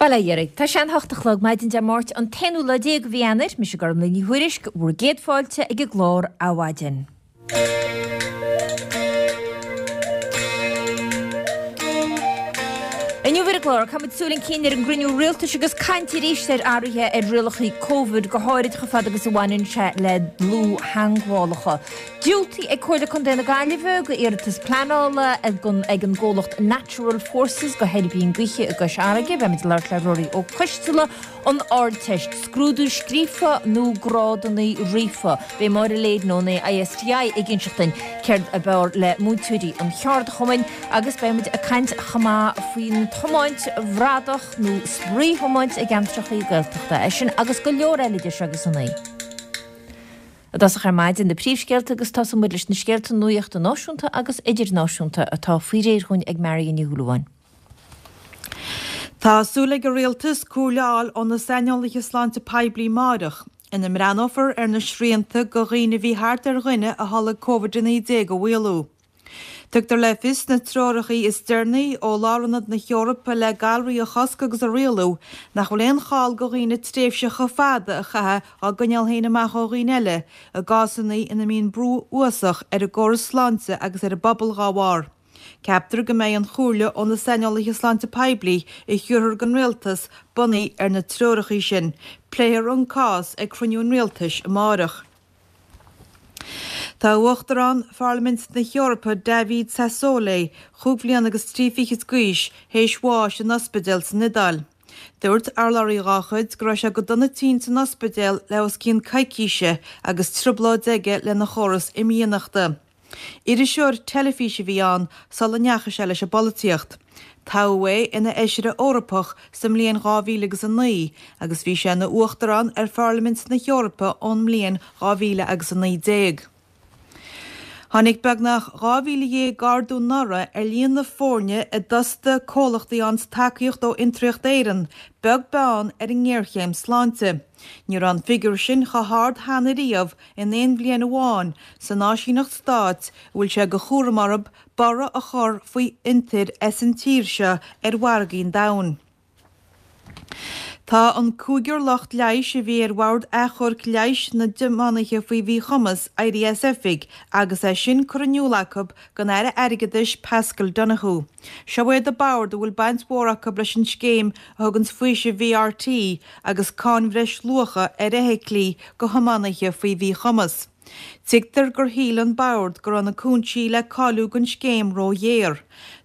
Bail ó Dhia oraibh. Tá sé an hocht a chlog maidin Dé Máirt an t-aonú lá déag de mhí Eanáir. Mise Gormlaith Ní Thuairisg, bhur gcéad fáilte ag an gclár Adhmhaidin. Inniu ar an gclár, caithfimid súil chun cinn ar an gcruinniú rialtais agus caint arís ar athruithe ar rialacha Covid, go háirid chomh fada agus a bhaineann sé le dlúth-theangmhálacha. Diúltaithe ag Comhairle Contae na Gaillimhe do iarratas pleanála ag an gcomhlacht Natural Forces do thuirbín gaoithe i gCois Fharraige. Beimid ag labhairt le Ruairí Ó Coisteala. An Ardteist, scrúdú scríofa nó grádanna ríofa? Beidh Máire Leyden ón ISTI ag inseacht duinn céard ab fhearr le múinteoirí an cheardchumainn agus beidh muid ag caint chomh maith faoin tiomáint bhradach nó spraoi-thiomáint i gceantracha Gaeltachta. É sin agus go leor eile idir seo agus a naoi. I dtosach ar maidin, na príomhscéalta agus tosóidh muid leis na scéalta nuachta náisiúnta agus idirnáisiúnta atá faoi réir dhúinn ag Marion Ní Shúilleabháin. Tá súil ag an Rialtas comhairle a fháil ó na saineolaithe sláinte poiblí amáireach, ina mbreathnófar ar na srianta do dhaoine a bhí thart ar dhuine a tholg Covid-19 a mhaolú. Tugtar le fios sna treoracha is deireanaí ó Lárionad na hEorpa le Galraí a Chosc agus a Rialú nach bhfuil aon chall do dhaoine tréimhse chomh fada a chaitheamh á gcoinneáil féin amach ó dhaoine eile i gcásanna ina mbíonn brú uafásach ar an gcóras sláinte agus ar an bpobal dhá bharr. Ceaptar go mbeidh an chomhairle ó na saineolaithe sláinte poiblí a thiúrfar don Rialtas bunaithe ar na treoracha sin. Pléifear an cás ag cruinniú an Rialtais amáireach. Tá Uachtarán Pharlaimint na hEorpa David Sassoli, chúig bhliana agus trí fichid d'aois, théis bháis in ospidéal san Iodáil. Dúirt urlabhraí dhá chuid go raibh sé go dona tinn san ospidéal le os cionn coicíse agus trioblóid aige lena chóras imdhíonachta. Iriseoir teilifíse a bhí ann sula ndeachaigh sé leis an bpolaitíocht. Toghadh é ina Fheisire Eorpach sa mbliain 2000 agus 9 agus bhí sé ina Uachtarán ar Pharlaimint na hEorpa ón mbliain 2000 agus 19. Tháinig beagnach 12,000 ardú anuraidh ar líon na foirne a d'fhostaigh comhlachtaí a fhaigheanns tacaíocht ó Fhiontraíocht Éireann, beag beann ar an ngéarchéim sláinte. Ní raibh an figiúr sin chomh hard cheana riamh in aon bhliain amháin san áisíneacht stáit a bhfuil sé de chúram orthu borradh a chur faoi fhiontair as an tír seo ar mhargaí an domhain. Tá an cúigear lucht leighis a bhí ar Bhord Achomhairc Leighis na dTiománaithe faoi Mhíchumas éirithe as oifig agus é sin curtha in iúl acu don Aire Airgeadais Paschal Donohoe. Seo iad an bord a bhfuil baint mhór acu leis an scéim a thuganns faoiseamh VRT agus cáin bhreisluacha ar fheithiclí do thiománaithe faoi mhíchumas. Tuigtear gur shíl an bord go raibh na cúinsí le cáiliú don scéim ró-ghéar.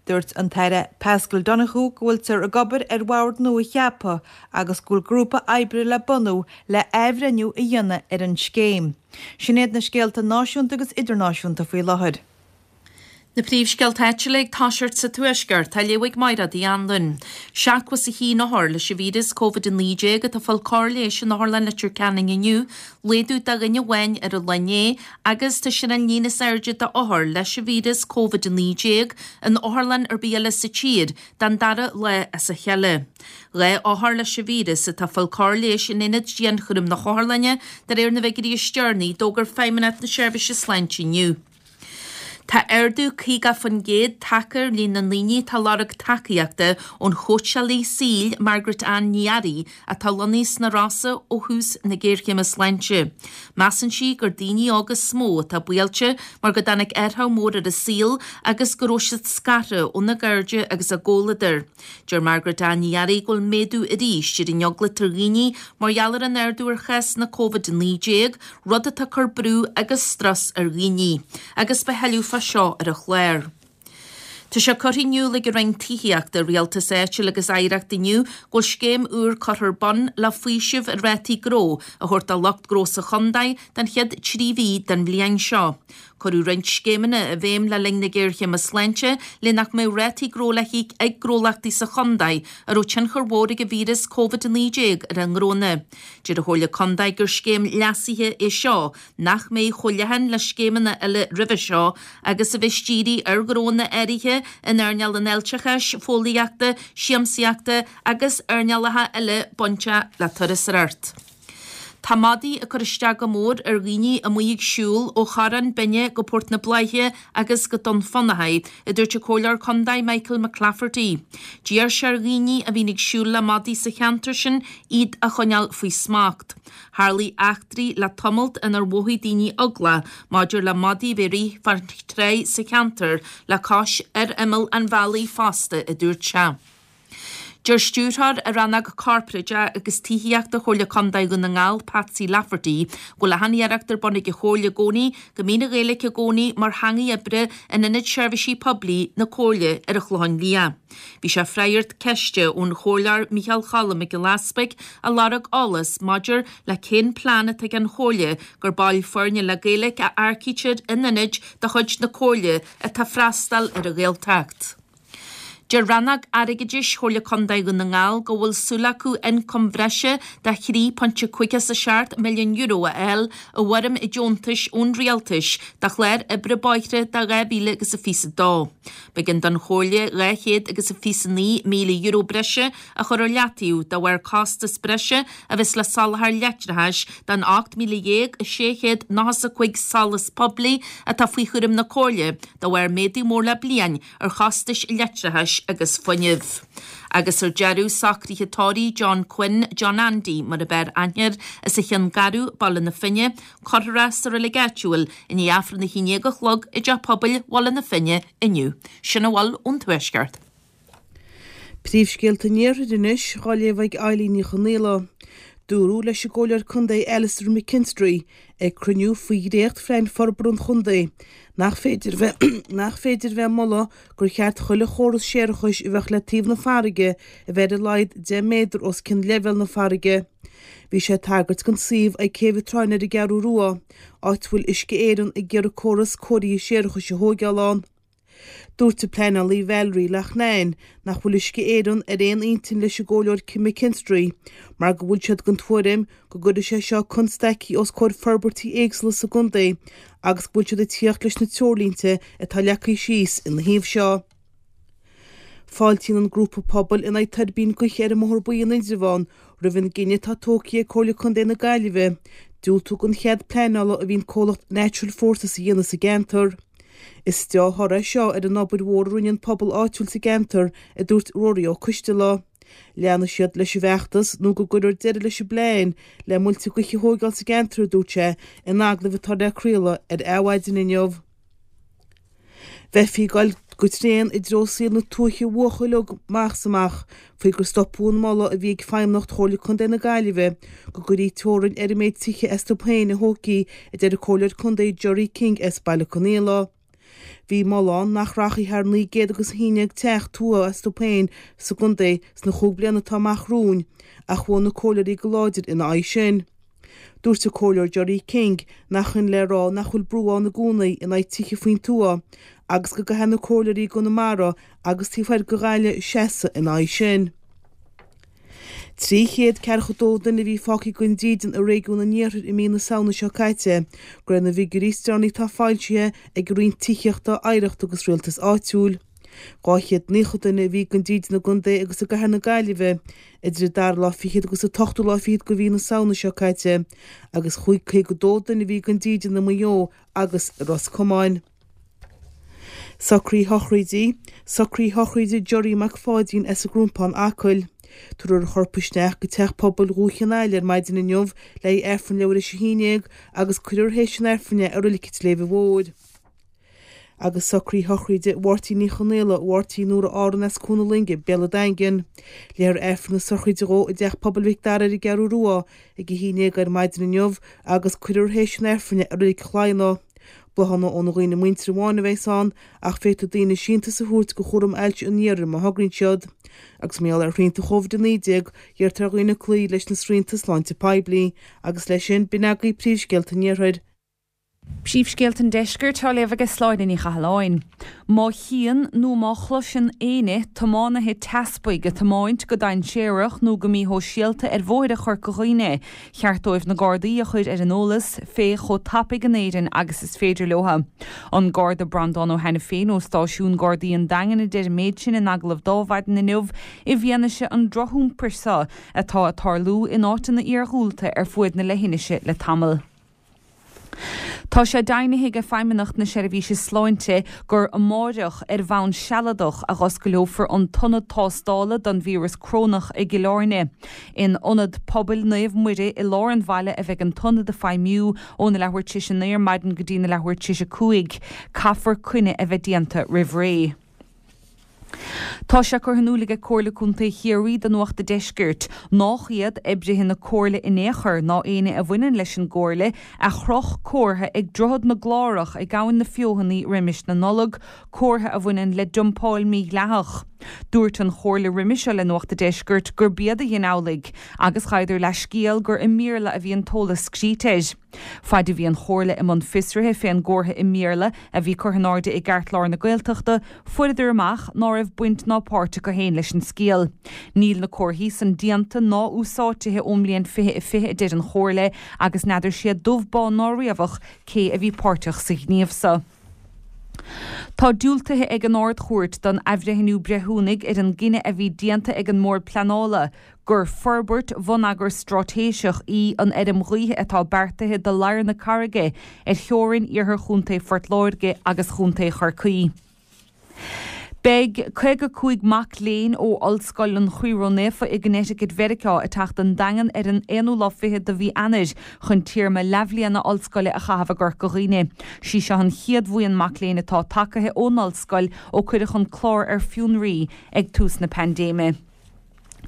Dúirt an tAire Paschal Donohoe go bhfuiltear ag obair ar bhord nua a cheapadh agus go bhfuil grúpa oibre le bunú le athbhreithniú a dhéanamh ar an scéim. Sin iad na scéalta náisiúnta agus idirnáisiúnta faoi láthair. Na príomhscéalta áitiúla ag toiseacht sa Tuaisceart, á léamh ag Máire Uí Anluain. 71 othar leis an víreas Covid-19 atá ag fáil cóir leighis in Otharlann Leitir Ceanainn inniu, laghdú de dhuine amháin ar an lá inné agus tá sin an líon is airde d'othair leis an víreas Covid-19 in otharlann ar bith eile sa tír don dara lá as a chéile. 2 othar leis an víreas atá ag fáil cóir leighis in aonad dianchúraim na hotharlainne, de réir na bhfigiúirí is deireanaí a d'fhógair Feidhmeannacht na Seirbhíse Sláinte inniu. Tá ardú 50% tagtha ar líon na ndaoine atá ag lorg tacaíochta ón chóitseálaí saoil Margaret Ann Ní Fhearraigh atá lonnaithe sna Rosa ó thús na géarchéime sláinte. Measann sí gur daoine óga is mó atá buailte mar go dtáinig athrach mór ar a saol agus go raibh siad scartha óna gcairde agus a gcomhluadar. Deir Margaret Ann Ní Fhearraigh go bhfuil méadú arís ar an eagla atá ar dhaoine mar gheall ar an ardú ar chásanna Covid-19, rud atá ag cur brú agus strus ar dhaoine, agus beidh tuilleadh fá seo ar an chlár. Tá sé curtha in iúl ag an Roinn Tithíochta, Rialtais Áitiúil agus Oidhreachta inniu go bhfuil scéim úr curtha ar bun le faoiseamh ar rátaí gnó a thabhairt do lucht gnó sa chontae don chéad 3 mhí den bhliain seo. Cuireadh roinnt scéimeanna i bhfeidhm le linn na géarchéime sláinte le nach mbeadh rátaí gnó le híoc ag gnólachtaí sa chontae a raibh tionchar mhór ag an víreas Covid-19 ar a ngnónna. Deir an Chomhairle Contae gur scéim leasaithe é seo nach mbeidh chomh leathan le scéimeanna eile roimhe seo agus a bheas dírithe ar ghnónna áirithe in earnáil an fháilteachais, fóillíochta, siamsaíochta agus earnálacha eile bainteach le turasóireacht. Tá madaí ag cur isteach go mór ar dhaoine amuigh ag siúl ó Chorrán Binne go Port na Bláiche agus go Dún Fionnachaidh, a dúirt an Comhairleoir Contae Michael McClafferty. D'iarr sé ar dhaoine a bhíonn ag siúl le madaí sa cheantar sin iad a choinneáil faoi smacht. Tharlaigh eachtraí le tamalt inar mhothaigh daoine eagla maidir le madaí a bheith ag rith fán tráigh sa cheantar le cois ar imeall an bhealaigh fosta, a dúirt sé. Deir Stiúrthóir i Rannóg Corparáideach agus Tithíochta Chomhairle Contae Dhún na nGall, Patsy Lafferty, go bhfuil achan iarracht ar bun ag an Chomhairle i gcónaí go mbíonn an Ghaeilge i gcónaí mar theangaidh oibre in Ionad Seirbhísí Poiblí na Comhairle ar an Chlochán Liath. Bhí sé ag freagairt ceiste ón Chomhairleoir Micheál Cholm Mac Giolla Easpaig a lorg eolas maidir le cén plean atá ag an Chomhairle gur baill foirne le Gaeilge a earcaítear in ionaid de chuid na Comhairle atá ag freastal ar an Ghaeltacht. Deir Rannóg Airgeadais Chomhairle Contae Dhún na nGall go bhfuil súil acu ioncam bhreise de €3.57 milliún a fháil i bhfoirm deontais ón Rialtais do chlár oibre bóithre do 2022. B'éigean don Chomhairle €229,000 breise a chur ar leataobh de bharr costas breise a bheas le soláthar leictreachais don 18,695 solas poiblí atá faoi chúram na Comhairle de bharr méadú mór le bliain ar chostais leictreachais agus fuinnimh. Agus ar deireadh, socruithe tórraimh John Quinn, John Andy mar ab fhearr aithne air, as an Cheann Garbh, Baile na Finne, cuirfear é sa reilig áitiúil i ndiaidh Aifreann a haon déag a chlog i dTeach Pobail Bhaile na Finne inniu. Sin a bhfuil ón Tuaisceart. Príomhscéalta an Iarthair anois, á léamh ag Eilín Ní Chonaola. Dúradh leis an gComhairleoir Contae Alastair McKinstry ag cruinniú faoi dhréacht-phlean forbartha an chontae nach féidir bheith nach féidir bheith ag moladh gur cheart chuile chóras séarachais a bheadh le taobh na farraige a bheith ar a laghad 10 méadar os cionn leibhéal na farraige. Bhí sé ag tagairt don suíomh ag Céibh an tSrutháin ar an gCeathrú Rua, áit a bhfuil Uisce Éireann ag iarraidh córas cóirithe séarachais a thóigeáil ann. Dúirt an pleanálaí Valerie Loughnane nach bhfuil Uisce Éireann ar aon intinn leis an gComhairleoir McKinstry mar go bhfuil siad den tuairim go gcuirfidh sé seo constaicí os comhair forbairtí éagsúla sa gcontae agus go bhfuil siad ag tíocht leis na treoirlínte atá leagtha síos ina thaobh seo. Fáiltíonn an grúpa pobail in aghaidh tuirbín gaoithe ar an mBóthar Buí in Indreabhán roimh an gcinneadh atá tógtha ag Comhairle Contae na Gaillimhe diúltú don chead pleanála a bhí an comhlacht Natural Forces a dhéanamh sa gceantar. Is deá-thoradh é seo ar an obair mhór a rinne an pobal áitiúil sa gceantar, a dúirt Ruairí Ó Coistealbha. Leanfaidh siad leis an bhfeachtas nó go gcuirfear deireadh leis an bplean le muilte gaoithe a thóigeáil sa gceantar, a dúirt sé in agallamh atá le craoladh ar Adhmhaidin inniu. Bheifí ag dul go tréan i dtreo saol na tuaithe a mhúchadh uilig amach is amach faoi gur stopadh an moladh a bhí ag Feidhmeannacht Chomhairle Contae na Gaillimhe go gcuirfí teorainn ar an méid tithe astu féin a thógfaí, a deir an Comhairleoir Contae Gerry King as Baile Conaola. Bhí moladh ann nach rachfaí thar 911 teach tuaithe astu féin sa gcontae sna chúig bliana atá amach romhainn ach bhuail na comhairleoirí go láidir ina aghaidh sin. Dúirt an Comhairleoir Gerry King nach shin le rá nach bhfuil brú ann i gcónaí in aghaidh tithe faoin tuath agus go gcaithfidh na comhairleoirí i gConamara agus taobh thoir de Ghaillimh seasamh ina aghaidh sin. 342 duine a bhí fágtha gan dídean i réigiún an Iarthair i mí na Samhna seo caite, de réir na bhfigiúirí is deireanaí atá foilsithe ag an Roinn Tithíochta, Oidhreachta agus Rialtais Áitiúil. 290 duine a bhí gan dídean i gcontae agus i gcathair na Gaillimhe idir an dara lá fichead agus an t-ochtú lá fichead de mhí na Samhna seo caite agus 52 duine a bhí gan dídean i Maigh Eo agus i Ros Comáin. Socruithe sochraide, Socruithe sochraide Gerry Mac Pháidín as an gCrompán, Acaill. Tabharfar a chorp isteach go Teach Pobail Dhúiche an Aill ar maidin inniu le haghaidh Aifreann leathuair théis a haon dhéag agus cuirfear théis an Aifrinn é i Reilig an tSléibhe Mhóir. agus socruithe sochraide Mháirtín Uí Chonaola, Mháirtín Nóra Árann as Cuan na Loinge, Béal an Daingin. Léifear Aifreann na sochraide dhó i dTeach Pobail Mhic Dara ar an gCeathrú Rua ag 11 ar maidin inniu agus cuirfear théis an Aifrinn é i Reilig Shladhna. Bláthanna óna dhaoine muinteartha amháin a bheas ann ach féadfaidh daoine síntiús a thabhairt do Chúram Ailse an Iarthair má thograíonn siad. Agus mar gheall ar shrianta Covid-19, iarrtar ar dhaoine cloí leis na srianta sláinte poiblí. Agus leis sin, b'in agaibh príomhscéalta an Iarthair. Príomhscéalta an Deiscirt á léamh aige Sláine Ní Chathalláin. Má chíonn nó má chloiseann éinne tiománaithe teaspaigh ag tiomáint go dainséarach nó go míshóisialta ar bhóithre Chorca Dhuibhne, cheart dóibh na Gardaí a chur ar an eolas fé chomh tapaidh in Éirinn agus is féidir leo. An Garda Breandán Ó hAiniféin ó Stáisiún Gardaí an Daingin a deir an méid sin in agallamh d'Adhmhaidin inniu i bhfianaise an drochiompair seo atá ag tarlú in áiteanna iarghúlta ar fuaid na leithinise le tamall. Tá sé deimhnithe ag Feidhmeannacht na Seirbhíse Sláinte gur amáireach, ar bhonn sealadach, a dh'oscaileofar an t-ionad tástála don víreas crónach i gCill Airne. In Ionad Pobail Naomh Muire i lár an bhaile a bheidh an t-ionad ag feidhmiú óna leathuair tar éis a naoi ar maidin go dtí na leathuair tar éis a 5. Caithfear coinne a bheith déanta roimh ré. Tá sé curtha in iúl aige Comhairle Contae Chiarraí do Nuacht a' Deiscirt nách iad oibrithe na Comhairle in aon chor ná éinne a bhaineann leis an gComhairle a chroch comhartha ag Droichead na gClárach ag Abhainn na Feothanaí roimis na Nollag, comhartha a bhaineann le dumpáil mhídhleathach. Dúirt an Chomhairle roime seo le Nuacht a' Deiscirt gurb iad a dhein amhlaidh agus ghabhadar leathscéal gur i mBéarla a bhí an t-eolas scríte air. Faid a bhí an Chomhairle i mbun fiosraithe fén gcomhartha i mBéarla a bhí curtha in airde i gceartlár na Gaeltachta, fuaireadar amach ná raibh baint ná páirt acu féin leis an scéal. Níl na comharthaí san déanta ná úsáidtithe ón mbliain 2020 a deir an Chomhairle agus n'fheadar siad dubh bán ná riabhach cé a bhí páirteach sa ghníomh so. Tá diúltaithe ag an Ard-Chúirt don athbhreithniú breithiúnaigh ar an gcinneadh a bhí déanta ag an mBord Pleanála gur forbairt bhonneagair straitéiseach í an fheirm ghaoithe atá beartaithe do Ladhar na Carraige ar theorainn iarthar Chontae Phort Láirge agus Chontae Chorcaí. Beidh 55 mac léinn ó Ollscoil an Chroí Ró-Naofa i gConnecticut Mheiriceá ag teacht don Daingean ar an aonú lá fichead de mhí Eanáir chun téarma leathbhliana ollscoile a chaitheamh i gCorca Dhuibhne. Sí seo an chéad bhuíon mac léinn atá tagaithe ón ollscoil ó cuireadh an clár ar fionraí ag tús na paindéime.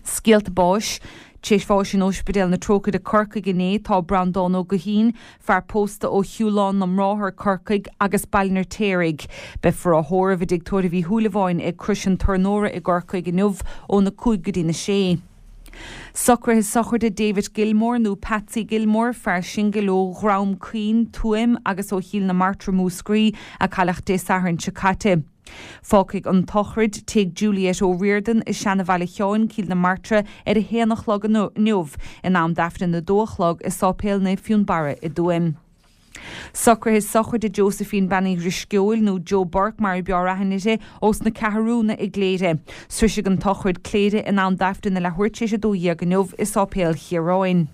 Scéalta báis. Tar éis bháis in Ospidéal na Trócaire, Corcaigh inné tá Breandán Ó Guithín, fear pósta ó Shiúlán na mBráthar, Corcaigh, agus Baile an Fheirtéaraigh. Beifear á thórramh i dTigh Tórraimh Uí Shúilleabháin ag Crois an Tornóra i gCorcaigh inniu óna 5 go dtína 6. Socruithe sochraide David Gilmore nó Patsy Gilmore, fear singil ó Dhrom Caoin, Tuaim agus ó Chill na Martra, Múscraí, a cailleadh Dé Sathairn seo caite. Fágfaidh an tsochraid Tigh Juliette O'Riordan i Seanabhaile Sheáin, Cill na Martra, ar a haon a chlog inniu, in am d'Aifreann a dó a chlog i Sáipéal Naomh Fionnbarra i dTuaim. Socruithe sochraide Josephine Bean Uí Dhrisceoil, nó Joe Burke mar a b'fhearr aithne uirthi, ós na Ceathrúna i gCléire. Sroisfidh an tsochraid Cléire in am d'Aifreann a leathuair tar éis a 12 inniu i Sáipéal Chiaráin.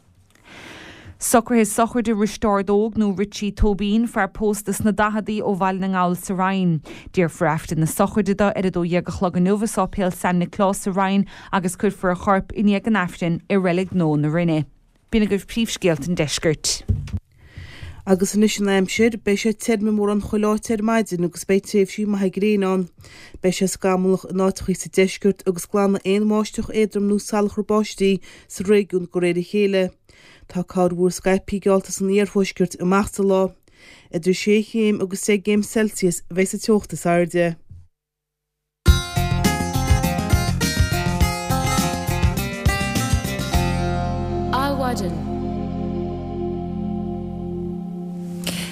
Socruithe sochraide Risteárd Óg nó Richie Tóibín, fear pósta sna daicheadaí ó Bhaile na nGall sa Rinn. Déarfar Aifreann na sochraide do ar 12 a chlog inniu i Sáipéal San Nioclás sa Rinn agus cuirfear a chorp i ndiaidh an Aifrinn i Reilig Nua na Rinne. B'in agaibh príomhscéalta an deiscirt. Agus anois an aimsir, beidh sé tirim i mórán chuile áit ar maidin agus beidh tréimhsí maithe gréine ann. Beidh sé scamallach in áiteachaí sa deisceart agus glanfaidh aon bháisteach éadrom nó salachar báistí sa réigiún de réir a chéile. Tá corrmhúr scaipthe geallta san iarthuaisceart amach sa lá. Idir sé chéim agus deich gcéim Celsius a bheidh sa teocht is airde. Adhmhaidin.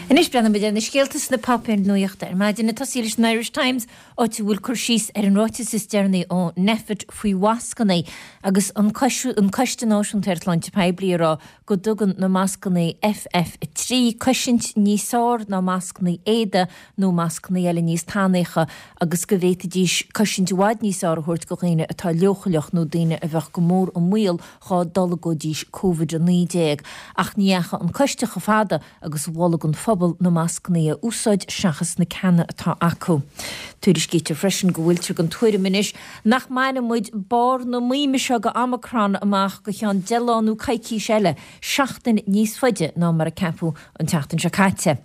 Anois breathnóimid ar na scéalta sna páipéir nuachta ar maidin. Ag tosaí leis an Irish Times, áit a bhfuil cur síos ar an ráiteas is deireanaí ó Nphet faoi mhascanna agus an Coiste Náisiúnta ar Shláinte Poiblí ag rá go dtugann na mascanna FF3 cosaint níos fearr ná mascanna éadaigh nó mascanna eile níos tanaíocha agus go bhféadfaidís cosaint i bhfad níos fearr a thabhairt do dhaoine atá leochaileach nó daoine a bheadh go mór i mbaol dhá dtolgóidís Covid-19. Ach ní dheachaigh an coiste chomh fada agus mhol don phobal na mascanna a úsáid seachas na ceanna atá acu. Tuairiscítear freisin go bhfuiltear den tuairim anois nach mbainfidh muid barr na maoime seo de Omicron amach go ceann 10 lá nó coicís eile, seachtain níos faide ná mar a ceapadh an tseachtain seo caite.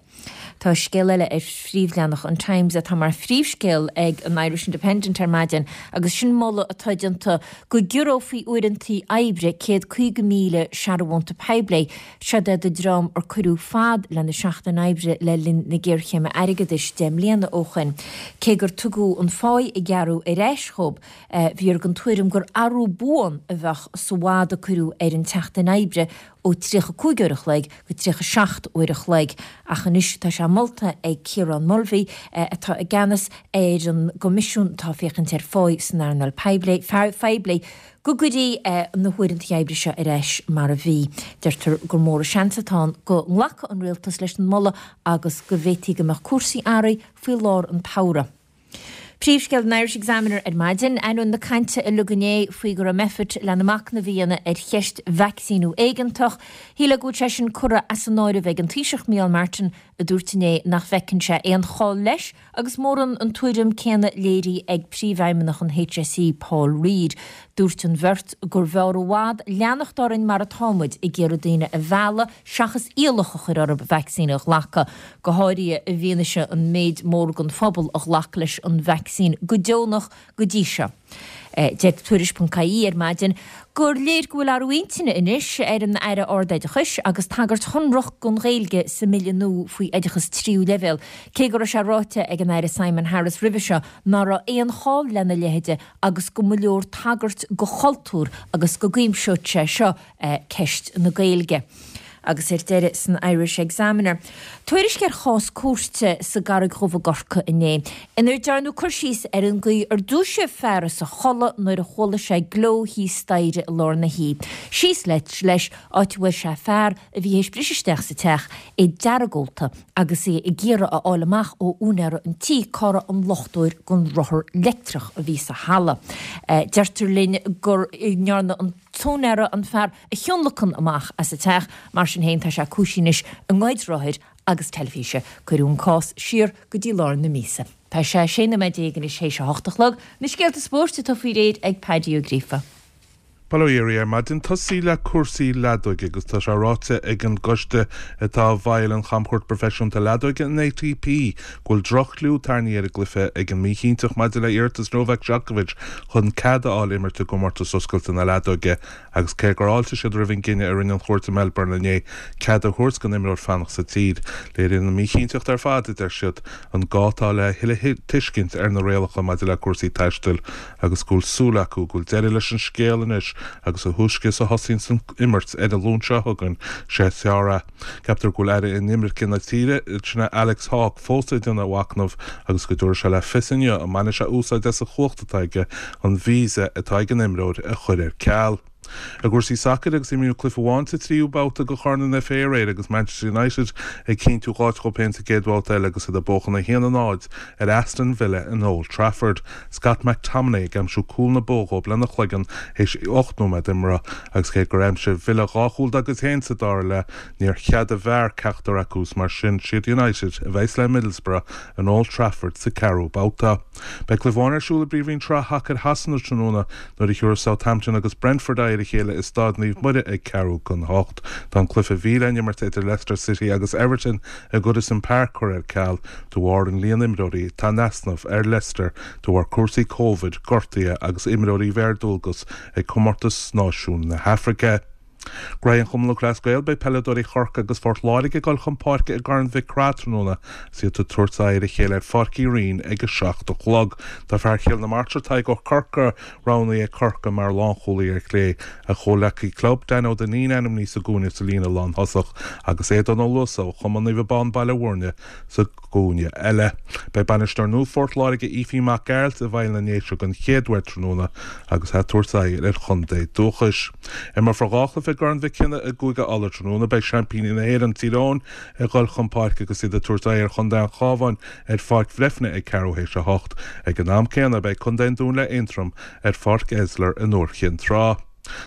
Tá scéal eile ar phríomhleathanach an Times atá mar phríomhscéal ag an Irish Independent ar maidin agus sin moladh atá déanta go gciorrófaí uaireanta oibre 150,000 searbhónta poiblí. Seod é do dream ar cuireadh fad lena seachtain oibre le linn na géarchéime airgeadais 10 mbliana ó shoin. Cé gur tugadh an pháigh a gearradh ar ais dhóibh, bhíothar den tuairim gur athrú buan a bheadh sa bhfad a cuireadh ar an tseachtain oibre. ó 35 uair a chloig go 37 uair a chloig ach anois tá sé molta ag Ciarán Mulvey, atá i gceannas ar an gcoimisiún atá ag féachaint ar pháí san earnáil phoiblí, go gcuirfí na huaireanta oibre seo ar ais mar a bhí. Deirtear gur mór an seans atá ann go nglacfaidh an rialtas leis an moladh agus go bhféadfaí go mbeadh cúrsaí athraithe faoi lár an tsamhraidh. Príomhscéal an Irish Examiner ar maidin, ainneoin na cainte uilig inné faoi go raibh Meffert lena machnamh a dhéanamh ar cheist vacsaíniú éigeantach, shílfeá go bhfuil sé sin curtha as an áireamh ag an Taoiseach Micheál Martin a dúirt inné nach bhfeiceann sé aon chall leis agus mórán an tuairim céanna léirithe ag Príomhfheidhmeannach an HSE Paul Reid. Dúirt an bheirt gurbh fhearr i bhfad leanacht orainn mar atá muid, ag iarraidh daoine a mhealladh seachas iallach a chur orthu vacsaín a ghlacadh, go háirithe i bhfianaise an méid mór den phobal a ghlac leis an vacsaín go deonach go dtí seo. Deir Tuairisc.ie ar maidin gur léir go bhfuil athrú intinne anois ar an Aire Ard-Oideachais agus tagairt shonrach don Ghaeilge sa mbille nua faoi oideachas tríú leibhéal, cé go raibh sé ráite ag an Aire Simon Harris roimhe seo ná raibh aon chall lena leithide agus go mba leor tagairt do chultúr agus go gcuimseodh sé seo ceist na Gaeilge. Agus ar deireadh san Irish Examiner, tuairisc ar chás cúirte sa gCarraig Dhubh i gCorcaigh inné, inar dearnadh cur síos ar an gcaoi ar dúisíodh fear as a chodladh nuair a chuala sé gleo thíos staighre i lár na hoíche. Síos leis, áit a bhfuair sé fear a bhí théis briseadh isteach sa teach, é deargólta agus é ag iarraidh a fháil amach ó úinéara an tí cá raibh an luchtóir don rothar leictreach a bhí sa halla. Deirtear linn go ndearna an. t-úinéara an fear a thionlacan amach as an teach, mar sin féin tá sé cúisithe anois i ngoid rothair agus teilifíse. Cuireadh an cás siar go dtí lár na míosa. Tá sé 16 nóiméad anois théis a hocht a chlog. Na scéalta spóirt atá faoi réir ag Paddy Ó Gríofa. Bail ó Dhia oraibh ar maidin. Tosaí le cúrsaí leadóige agus tá sé ráite ag an gcoiste atá i bhfeighil an chamchuairt proifisiúnta leadóige, an ATP, go bhfuil droch-chliú tarraingthe ar an gcluiche ag an míchinnteacht maidir le iarratas Novak Djokovic chun cead a fháil imirt i gcomórtas oscailte na leadóige agus cé gur fháiltigh siad roimh an gcinneadh a rinne an chúirt i Melbourne inné cead a thabhairt don imreoir fanacht sa tír, léiríonn an mhíchinnteacht ar fad, a deir siad, an gá atá le thuilleadh tuiscint ar na rialacha maidir le cúrsaí taistil agus go bhfuil súil acu go bhfuil deireadh leis an scéal anois agus a thúisce is a thosaíonns an imirt ar an Luan seo chugainn, sé is fearr é. Ceaptar go bhfuil Aire Inimirce na tíre, sin é Alex Hawke, fós ag déanamh a mhachnaimh agus go dtabharfaidh sé le fios inniu an mbainfidh sé úsáid as an chumhacht atá aige an visa atá ag an imreoir a chur ar ceal. I gcúrsaí sacair agus imríodh cluiche amháin sa tríú babhta de Chorn an FA aréir agus Manchester United ag cinntiú dh'áit dhóibh féin sa gcéad bhabhta eile agus iad ag buachan 1-0 ar Aston Villa in Old Trafford. Scott McTominay ag aimsiú cúl na bua dhóibh lena chloigeann théis 8 nóiméad imeartha agus cé gur aimsigh Villa dhá chúl dá gcuid féin sa dara leath, níor cheadaigh VAR ceachtar acu is mar sin siad United a bheas le Middlesbrough in Old Trafford sa ceathrú babhta. Beidh cluiche amháin ar siúl i bPríomhroinn Shraith Shacair Shasana tráthnóna nuair a thiúrfas Southampton agus Brentford aghaidh ar a chéile i Staid Naomh Muire ag ceathrú don hocht. Tá an cluiche a bhí le n-imirt idir Leicester City agus Everton i Goodison Park curtha ar ceal de bharr an líon imreoirí atá in easnamh ar Leicester de bharr cúrsaí Covid, gortuithe agus imreoirí a bheith ar dualgas ag Comórtas Náisiún na hAfraice. Graithe an Chumann Lúthchleas Gael, Beidh peileadóirí Chorcaí agus Phort Láirge ag dul chun páirce i gCorn Mhic Craith tráthnóna agus iad ag tabhairt aghaidh ar a chéile ar Pháirc Uí Rinn ag 7 a chlog. Tá fear Chill na Martra, Tadhg Ó Corcora, roghnaithe ag Corcaigh mar lánchúlaí ar chlé. A chomhleacaí club, Dan Ó Duinnín ainmnithe sa gcúinne sa líne lánthosach agus Aodán Ó Luasa ó Chumann Naomh Abán Baile Mhúirne sa gcúinne eile. Beidh bainisteoir nua Phort Láirge, Aoibhín Mac Gearailt, i bhfeighil na nDéise den chéad uair tráthnóna agus é ag tabhairt aghaidh ar a chontae dúchais. Imreofar dhá chluiche i gCorn Mhic Cionnaith i gCúige Uladh tráthnóna. Beidh seaimpíní na hÉireann, Tír Eoghain, ag dul chun páirce agus iad ag tabhairt aghaidh ar chontae an Chabháin ar Pháirc Bhreifne ag ceathrú théis a hocht. Ag an am céanna, beidh contae an Dúin le Aontroim ar Pháirc Esler in Iúr Chinn Trá.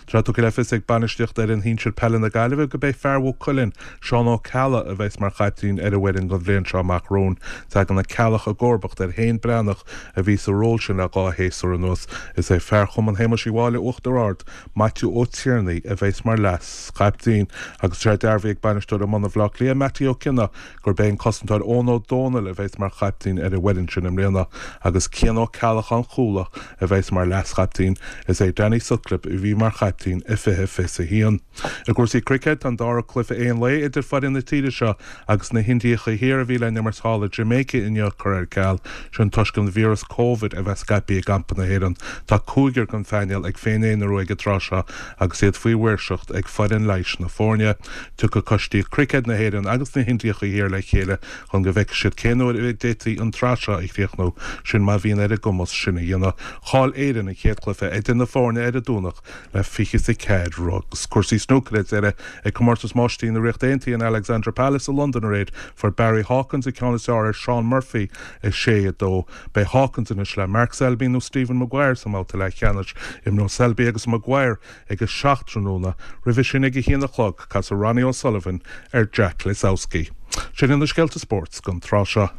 Tá tugtha le fios ag bainistíocht fhoireann shinsir peile na Gaillimhe go b'é fear Mhaigh Cuilinn, Seán Ó Ceallaigh, a bheas mar chaiptín ar an bhfoireann don bhliain seo amach romhainn. Tagann Ó Ceallaigh i gcomharbacht ar Shéan Breathnach a bhí sa ról sin le dhá shéasúr anuas. Is é fear Chumann Shéamuis Uí Mháille Uachtar Ard, Maitiú Ó Tiarnaigh, a bheas mar leas-chaiptín. Agus tá sé dearbhaithe ag bainisteoir iomána Bhaile Átha Cliath, Mattie Ó Cionnaith, gurb é an cosantóir Eoin Ó Dónaill a bheas mar chaiptín ar an bhfoireann sin i mbliana agus Cian Ó Ceallacháin Chuala a bheas mar leas-chaiptín. Is é Danny Sutcliffe a bhí mar. mar chaiptín i 2021. I gcúrsaí cruicéid, tá an dara cluiche aon lae idir foireann na tíre seo agus na hIndiacha Thiar a bhí le n-imirt thall i Jamaica inniu curtha ar ceal, sin toisc an víreas Covid a bheith scaipthe i gcampa na hÉireann. Tá cúigear den phainéal ag féin-aonarú ag an tráth seo agus iad faoi mhaoirseacht ag foireann leighis na foirne. Tiocfaidh coistí cruicéid na hÉireann agus na hIndiacha Thiar le chéile chun go bhfeicfidh siad cén uair a d'fhéadfaí an tsraith seo a chríochnú, sin má bhíonn ar a gcumas sin a dhéanamh. Chaill Éirinn an chéad chluiche idir na foirne ar an Domhnach le 24 rud. Agus cúrsaí snúcair ar deireadh ag Comórtas Máistrí na Ríochta Aontaithe in Alexandra Palace i Londain aréir, fuair Barry Hawkins an ceann is fearr ar Shaun Murphy, 6, 2. Beidh Hawkins anois le Mark Selby nó Stephen Maguire sa mbabhta leathcheannais. Imreoidh Selby agus Maguire ag a 7 tráthnóna. Roimhe sin ag a haon a chlog, casfaidh Ronnie O'Sullivan ar Jack Lisowski. Sin iad na scéalta spóirt don tráth seo.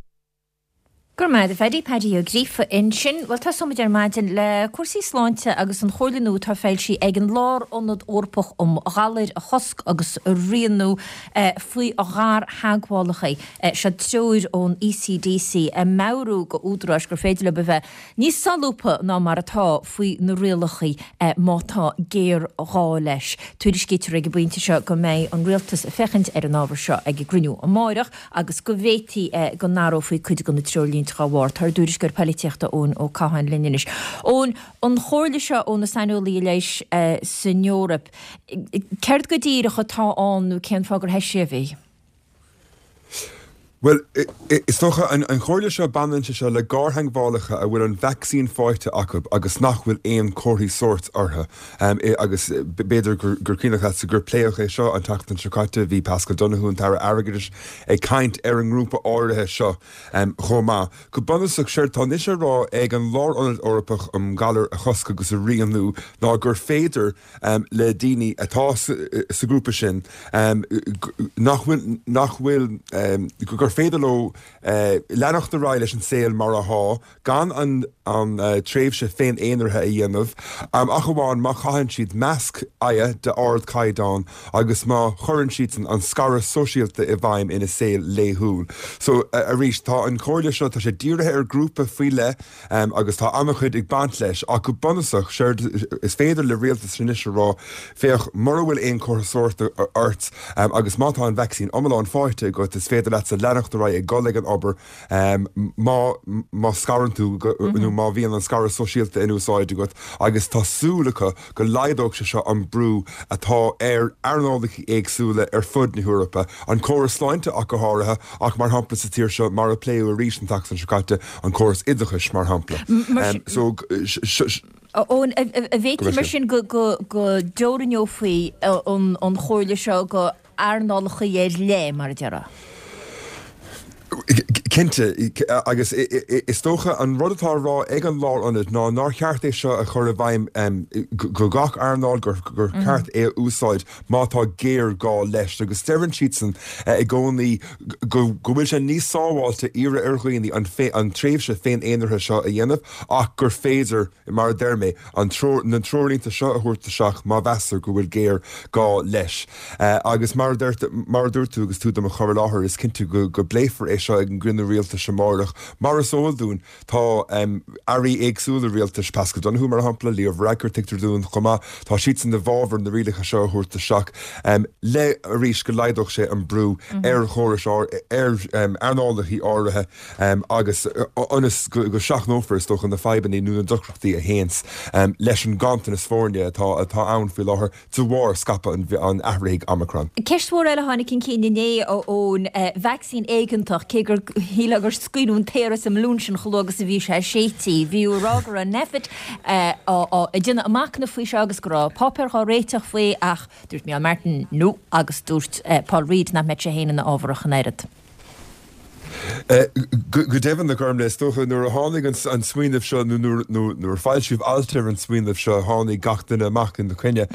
Go raibh maith agat a Phaddy, Paddy Ó Gríofa ansin. Bhuel, tosóimid ar maidin le cúrsaí sláinte agus an chomhairle nua atá foilsithe ag an Lárionad Eorpach um Ghalair a Chosc agus a Rianú faoi ghartheagmhálacha. Seo treoir ón ECDC ag meabhrú go údaráis gur féidir leo a bheith níos solúbtha ná mar atá faoi na rialacha má tá géarghá leis. Tuairiscítear ag an bpointe seo go mbeidh an Rialtas ag féachaint ar an ábhar seo ag a gcruinniú amáireach agus go bhféadfaí go n-athrófaí cuid de na treoirlínte dá bharr. Tá ár dtuairisceoir poilitíochta Eoin Ó Catháin linn anois. Eoin, an chomhairle seo ó na saineolaithe leighis san Eoraip, céard go díreach atá ann nó cén fáth gur heisíodh í? Bhuel, is dócha, an chomhairle seo, baineann sé seo le gartheagmhálacha a bhfuil an vacsaín faighte acu agus nach bhfuil aon chomharthaí sóirt orthu. Agus b'fhéidir gur cuimhneach leatsa gur pléadh é seo an tseachtain seo caite, bhí Paschal Donohoe, an tAire Airgeadais, ag caint ar an ngrúpa áirithe seo chomh maith. Go bunúsach, séard tá anois á rá ag an Lárionad Eorpach um Ghalair a Chosc agus a Rianú ná gur féidir, le daoine atá sa ghrúpa sin nach bhfuil, nach bhfuil, gur féidir leo leanacht ar aghaidh leis an saol mar athá gan an tréimhse féin-aonraithe a dhéanamh, ach amháin má chaitheann siad masc aghaidhe d'ardchaighdeán agus má chuireann siadsan an scaradh sóisialta i bhfeidhm ina saol laethúil. So, arís, tá an chomhairle seo, tá sé dírithe ar ghrúpa faoi leith, Agus tá an-chuid ag baint leis. Ach go bunúsach, séard is féidir le rialtas anois a rá, féach, mura bhfuil aon chomhartha sóirt ort agus má tá an vacsaín iomlán faighte agat, is féidir leatsa leanacht ar aghaidh ag dul ag an obair má má scarann tú nó má bhíonn an scaradh sóisialta in úsáid agat agus tá súil acu go laghdódh sé seo an brú atá ar earnálacha éagsúla ar fud na hEorpa, an córas sláinte ach go háirithe, ach mar shampla sa tír seo, mar a pléadh arís an tseachtain seo caite, an córas oideachais mar shampla. So, Eoin, an bhféadfaí mar sin go dteoraineofaí an chomhairle seo go earnálacha ar leith, mar a déarfá? Cinnte, agus is dócha an rud atá á rá ag an Lárionad ná nár cheart é seo a chur i bhfeidhm go gach earnáil, gur ceart é a úsáid má tá géarghá leis. Agus deireann siadsan i gcónaí go bhfuil sé níos sábháilte iarraidh ar dhaoine an tréimhse féin-aonraithe seo a dhéanamh ach gur féidir, mar a deir mé, an na treoirlínte seo a thabhairt isteach má mheastar go bhfuil géarghá leis. Agus mar a mar a dúirt tú agus tú do mo chur i láthair, is cinnte go go bpléifear é seo ag an gcruinniú rialtais amárach. Mar is eol dúinn, tá airí éagsúla rialtais, Paschal Donohoe mar shampla, Leo Varadkar tuigtear dúinn chomh maith, tá siadsan i bhfabhar na rialacha seo a thabhairt isteach le arís go laghdódh sé an brú ar chórais ar earnálacha áirithe. agus ionas go seachnófar, is dócha, na fadhbanna nó na deacrachtaí a théanns leis an nganntanas foirne atá atá ann faoi láthair de bharr scaipeadh an athraithigh Omicron. Ceist mhór eile a tháinig chun cinn inné ón vacsaín éigeantach, cé gur shílfeá gur scaoileadh an t-aer as an mbalún sin chomh luath agus a bhí sé séidte. Bhí á rá go raibh Nphet ag déanamh a machnamh faoi seo agus go raibh páipéar dhá réiteach faoi ach dúirt Micheál Martin no agus dúirt Paul Reid nach mbeadh sé féin ina fhábhar ach an oiread. Go deimhin, a Ghormlaith, is dócha, nuair a tháinig an smaoineamh seo, nó nuair a foilsíodh alt ar an smaoineamh seo, tháinig gach duine amach ina choinne.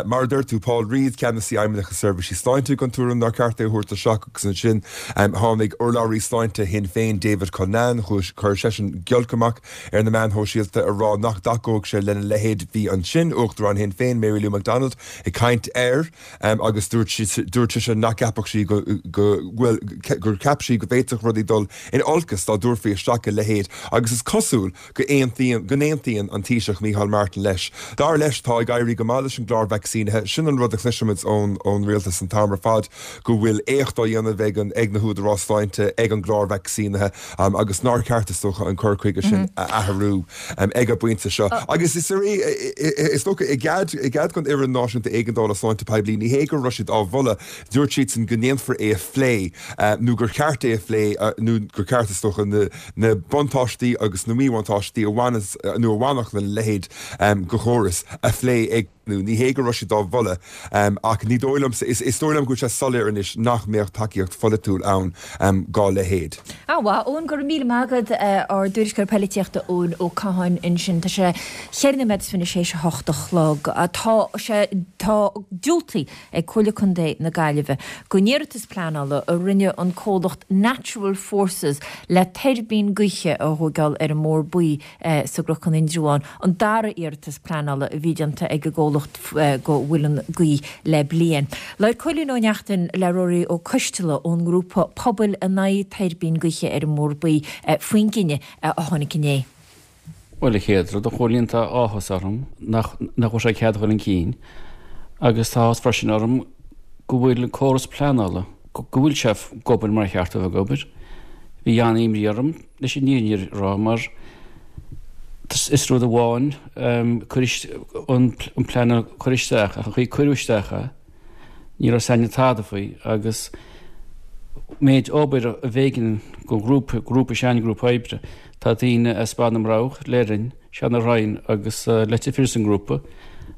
Mar a deir tú, Paul Reid, Ceannasaí Fheidhmeannacht na Seirbhísí Sláinte, den tuairim nár cheart é a thabhairt isteach agus ansin tháinig urlabhraí sláinte Shinn Féin, David Cullinane, chuir seisean giolc amach ar na meáin shóisialta a rá nach dtacódh sé lena leithéid. Bhí ansin Uachtarán Shinn Féin, Mary Lou McDonald, ag caint air. Agus dúirt dúirt sise nach gceapfadh sí go, go, bhuel, gur cheap sí go bhféadfadh rudaí. rudaí dul in olcas dá dtabharfaí isteach a leithéid agus is cosúil go aontaíonn go n-aontaíonn an Taoiseach Micheál Martin leis. Dar leis, tá ag éirí go maith leis an gclár vacsaínithe. Sin an rud a chloisimid ón ón rialtas an t-am ar fad, go bhfuil éacht á dhéanamh ag an ag na húdaráis sláinte ag an gclár vacsaínithe agus nár cheart, is dócha, an cur chuige sin a athrú ag an bpointe seo. Agus is is dócha, i gcead i gcead don Fhoireann Náisiúnta Éigeandála Sláinte Poiblí, ní hé go raibh siad á mholadh, dúirt siadsan go ndéanfar é a phlé nó gur cheart é a phlé nó gur ceart, is dócha, na na buntáistí agus na míbhuntáistí a bhaineas nó a bhainfeadh lena leithéid de chóras a phlé ag nó ní hé go raibh siad á mholadh ach ní dóigh liomsa, is dóigh liom go bhfuil sé soiléir anois nach mbeadh tacaíocht pholaitiúil ann dá leithéid. An-mhaith, Eoin, go raibh míle maith agat, ár dtuairisceoir poilitíochta Eoin Ó Catháin ansin. Tá sé cheithre nóiméad is fiche théis a hocht a chlog. Tá sé, tá diúltaithe ag Comhairle Contae na Gaillimhe don iarratas pleanála a rinne an comhlacht Natural Forces le tuirbín gaoithe a thóigeáil ar an mBóthar Buí sa gCnocán Indreabhán, an dara iarratas pleanála a bhí déanta ag an gcomhlacht do mhuileann gaoth le bliain. Labhair Cóilín Ó Neachtain le Ruairí Ó Coisteala ón ngrúpa pobail in aghaidh tuirbín gaoithe ar an mBóthar Buí faoin gcinneadh a tháinig inné. Bhuel, a chéad rud, a Chóilín, tá áthas orm nach nach bhfuil sé cead a dhul chun cinn agus tá áthas freisin orm go bhfuil an córas pleanála, go bhfuil sé ag obair mar a cheart dó bheith ag obair. Bhí an-imní orm leis an fhírinne a rá mar is rud amháin cur an plean a chur isteach ach an chaoi a cuireadh isteach é, ní raibh s'againne tada faoi agus méid obair a b'éigean don ghrúpa, grúpa s'againne, grúpa oibre. Tá daoine as Baile na mBroghach, Leirinn, Seanadh Rinn agus Leitir Fir san ngrúpa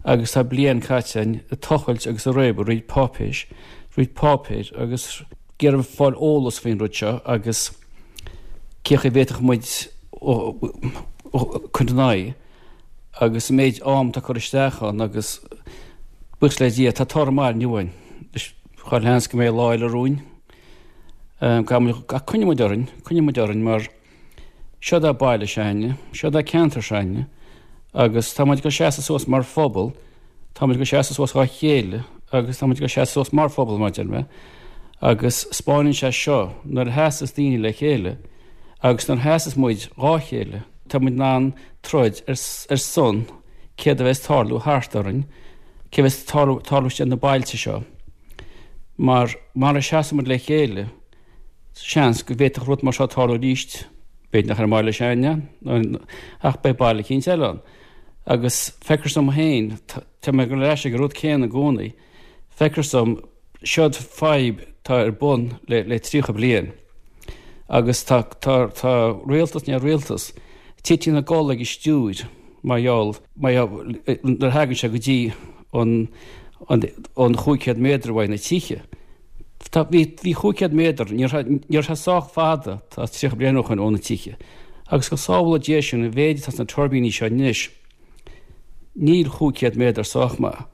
agus tá bliain caite againn ag tochailt agus ag réabadh roinnt páipéis, roinnt páipéir agus ag iarraidh fáil eolas faoin rud seo agus cé chaoi a bhféadfadh muid cur ina aghaidh agus an méid am atá curtha isteach ann agus buíochas le Dia tá toradh maith inniu againn. Chuile sheans go mbeidh lá eile romhainn. Ach coinneoidh muid orainn, coinneoidh muid orainn mar Seod é baile s'againne, seod é ceantar s'againne agus tá muid ag dul seasamh suas mar phobal, tá muid ag dul seasamh suas dhá chéile agus tá muid ag dul seasamh suas mar phobal mar a deir mé agus 'spáineann sé seo nuair a sheasas daoine le chéile agus nuair a sheasas muid dhá chéile tá muid in ann troid ar ar son céard a bheas tarlú thart orainn, cé bheas tarlú tarlú istigh na bailte seo mar mara seasann muid le chéile Seans go bhféadfadh rud mar seo tarlú arís, b'fhéidir nach ar an mbaile s'againne, ach beidh baile eicínt eile ann. Agus feictear dom féin, tá mé ag dul ar ais ag an rud céanna i gcónaí, feictear dom, seod fadhb atá ar bun le le 30 bliain agus tá tá tá rialtas i ndiaidh rialtas tite ina gcodladh ag an stiúir mar gheall mar gheall nuair a thagann sé go dtí an an an 500 méadar uaidh na tithe. Tá, bhí, bhí 500 méadar, ní raibh, ní raibh sé sách fada, tá 30 bliain ó shoin, ó na tithe. Agus go sábhála Dia sinn, an mhéid atá sna tuirbíní seo anois, níl 500 méadar sách maith.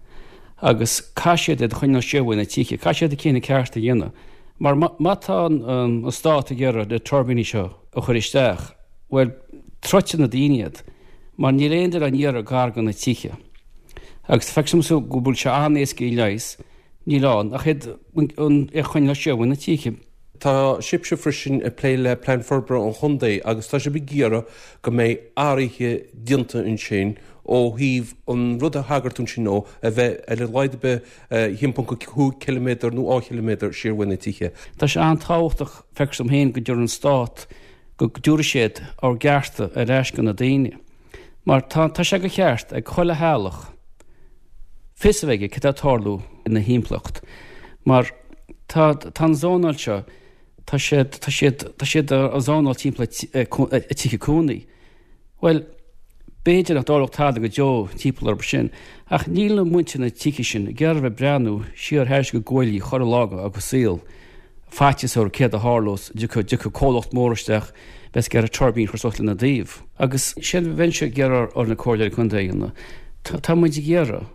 Agus caithfidh siad iad a choinneáil siar uaidh na tithe, caithfidh siad an cinneadh ceart a dhéanamh. Mar má, má tá an, an stát ag iarraidh na tuirbíní seo a chur isteach, bhuel, troidfidh na daoine iad, mar níl aon duine á n-iarraidh gar do na tithe. Agus feictear domsa go bhfuil sé an-éasca a leigheas, Níl ann ach iad a choinneáil siar ó na tithe. Tá sibhse freisin ag plé le Plean Forbartha an Chontae agus tá sibh ag iarraidh go mbeidh athruithe déanta ansin ó thaobh an rud a thagair tú ansin ó a bheith ar a laghad ar bith 1.5 ciliméadar nó 2 chiliméadar siar uaidh na tithe. Tá sé an-tábhachtach, feictear dom féin, go dtabharfaidh an Stát, go dtabharfaidh siad ár gcearta ar ais go na daoine. Mar tá, tá sé de cheart ag chuile theaghlach fios a bheith aige cad tá ag tarlú ina thimpeallacht. Mar tá, tá an zónáil seo, tá siad, tá siad, tá siad á zónáil timpeall a tithe cónaí. Bhuel, b'fhéidir nach dtarlódh tada go deo timpeall orthu sin, ach níl muintir na tithe sin ag iarraidh a bheith ag breathnú siar thairis a gcuaillí chuile lá dá saol. Faitíos orthu céard a tharlós, dtiocfadh comhlacht mór isteach, bheas ag iarraidh tuirbín a chur suas lena dtaobh. Agus sin a bheinnse ag iarraidh ar na comhairleoirí contae a dhéanamh. Tá muid ag iarraidh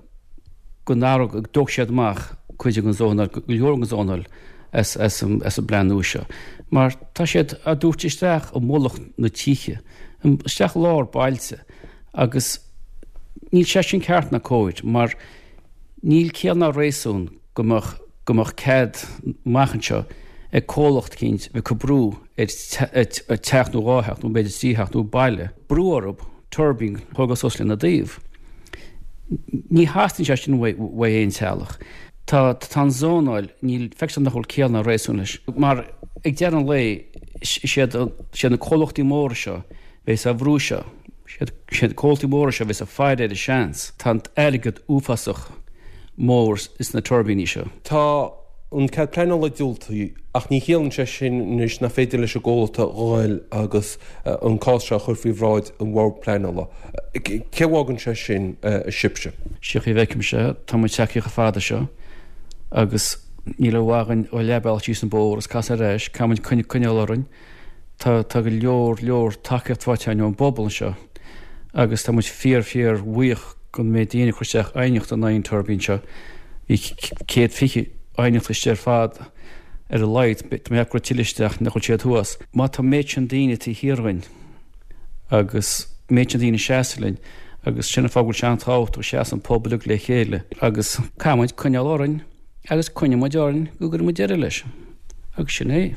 go n-athródh, go dtógfaidh siad amach cuid den zónáil, go leor den zónáil as an bplean nua seo. Mar tá siad á dtabhairt isteach i mullach na tithe, isteach i lár bailte agus níl sé sin ceart ná cóir mar níl ciall ná réasún go mbeadh go mbeadh cead amach anseo ag comhlacht eicínt a bheith ag cur brú ar teach nó dhá theach nó b'fhéidir trí theach nó baile, brú orthu tuirbín a thógáil suas lena dtaobh. Ní theastaíonn sé sin uaidh aon teaghlach. Tá tá an zónáil, níl, feictear nach bhfuil ciall ná réasún leis. Mar ag deireadh an lae, is iad is iad na comhlachtaí móra seo a bheas á bhrú seo, is iad is iad na comhlachtaí móra seo a bheas ag faire ar an seans. Tá an t-airgead uafásach mór sna tuirbíní seo. Tá an cead pleanála diúltaithe ach ní chiallaíonn sé sin anois nach féidir leis an gcomhlacht a ghoil agus an cás seo a chur faoi bhráid an Bhord Pleanála. Cé bhfágann sé sin sibhse? Sé chaoi a bhfeicimse, tá muid tagtha chomh fada seo agus níl aon mhaith againn dul leathbhealach síos an bóthar agus casadh ar ais, caithfidh muid coinneáil orainn. Tá tá go leor leor tacaíocht faighte againn ón bpobal anseo agus tá muid fíor fíor bhuíoch den méid daoine a chuir isteach aighneacht in aghaidh an tuirbín seo. Bhí 120 aighneacht istigh ar fad ar a laghad, tá mé ag ceapadh go raibh tuilleadh isteach nach bhfuil siad thuas. Má tá an méid sin daoine taobh thiar dhínn agus an méid sin daoine ag seasamh linn agus sin an fáth go bhfuil sé an-tábhachtach go seasann an pobal uilig le chéile agus caithfidh muid coinneáil orainn agus coinneoidh muid orainn go gcuirfidh muid deireadh leis agus sin é.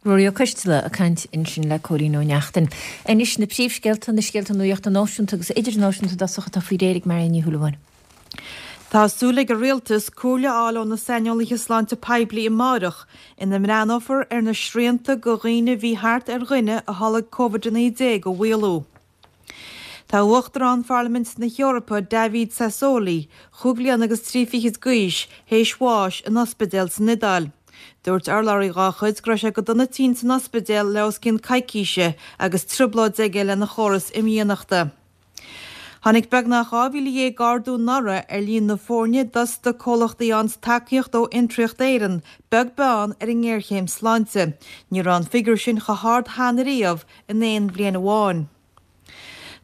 Ruairí Ó Coisteala ag caint ansin le Cóilín Ó Neachtain. Anois na príomhscéalta, na scéalta nuachta náisiúnta agus idirnáisiúnta i dtosach atá faoi réir ag Marion Ní Shúilleabháin. Tá súil ag an Rialtas comhairle a fháil ó na saineolaithe sláinte poiblí amáireach ina mbreathnófar ar na srianta go dhaoine a bhí thart ar dhuine a tholg Covid-19 a mhaolú. Tá Uachtarán Pharlaimint na hEorpa, David Sassoli, chúig bhliana agus trí fichid d'aois, théis bháis in ospidéal san Iodáil. Dúirt urlabhraí dhá chuid go raibh sé go dona tinn san ospidéal le os cionn coicíse agus trioblóid aige lena chóras imdhíonachta. Tháinig beagnach 12,000 ardú anuraidh ar líon na foirne d'fhostaigh comhlachtaí a fhaigheanns tacaíocht ó Fhiontraíocht Éireann, beag beann ar an ngéarchéim sláinte. Ní raibh an figiúr sin chomh hard cheana riamh in aon bhliain amháin.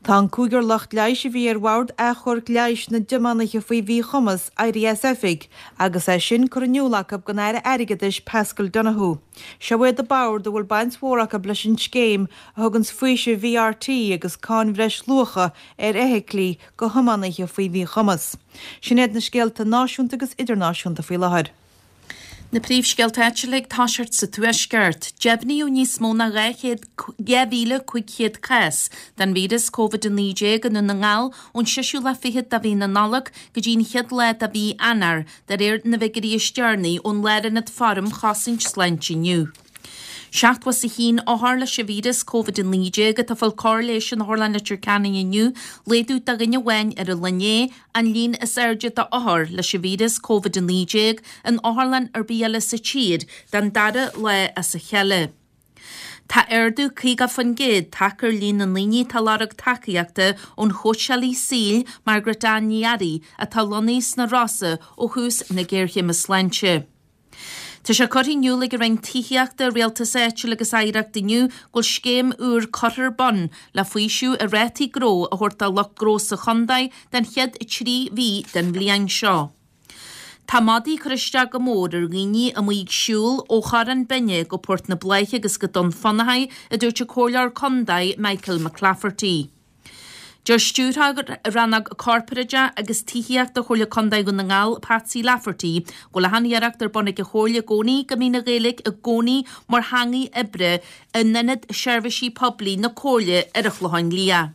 Tá an cúigear lucht leighis a bhí ar Bhord Achomhairc Leighis na dTiománaithe faoi Mhíchumas éirithe as oifig agus é sin curtha in iúl acu don Aire Airgeadais Paschal Donohoe. Seo iad an bord a bhfuil baint mhór acu leis an scéim a thuganns faoiseamh VRT agus cáin bhreisluacha ar fheithiclí go thiománaithe faoi mhíchumas. Sin iad na scéalta náisiúnta agus idirnáisiúnta faoi láthair. Na príomhscéalta áitiúla ag toiseacht sa Tuaisceart. Deimhníodh níos mó ná 2,500 cás den víreas Covid-19 i nDún na nGall ón seisiú lá fichead de mhí na Nollag go dtí an chéad lá de mhí Eanáir, de réir na bhfigiúirí is deireanaí ón Lárionad Forum Chosaint Sláinte inniu. 71 othar leis an víreas Covid-19 atá ag fáil cóir leighis in Otharlann Leitir Ceanainn inniu, laghdú de dhuine amháin ar an lá inné, an líon is airde d'othair leis an víreas Covid-19 in otharlann ar bith eile sa tír don dara lá as a chéile. Tá ardú 50% tagtha ar líon na ndaoine atá ag lorg tacaíochta ón chóitseálaí saoil Margaret Ann Ní Fhearraigh atá lonnaithe sna Rosa ó thús na géarchéime sláinte. Tá sé curtha in iúl ag an Roinn Tithíochta, Rialtais Áitiúil agus Oidhreachta inniu go bhfuil scéim úr curtha ar bun le faoiseamh i rátaí gnó a thabhairt do lucht gnó sa chontae den chéad 3 mhí den bhliain seo. Tá madaí ag cur isteach go mór ar dhaoine amuigh ag siúl ó Chorrán Binne go Port na Bláiche agus go Dún Fionnachaidh, a dúirt an Comhairleoir Contae Michael McClafferty. Deir Stiúrthóir Rannóg Corparáideach agus Tithíochta Chomhairle Contae Dhún na nGall, Patsy Lafferty, go bhfuil achan iarracht ar bun ag an Chomhairle i gcónaí go mbíonn an Ghaeilge i gcónaí mar theangaidh oibre in Ionad Seirbhísí Poiblí na Comhairle ar an Chlochán Liath.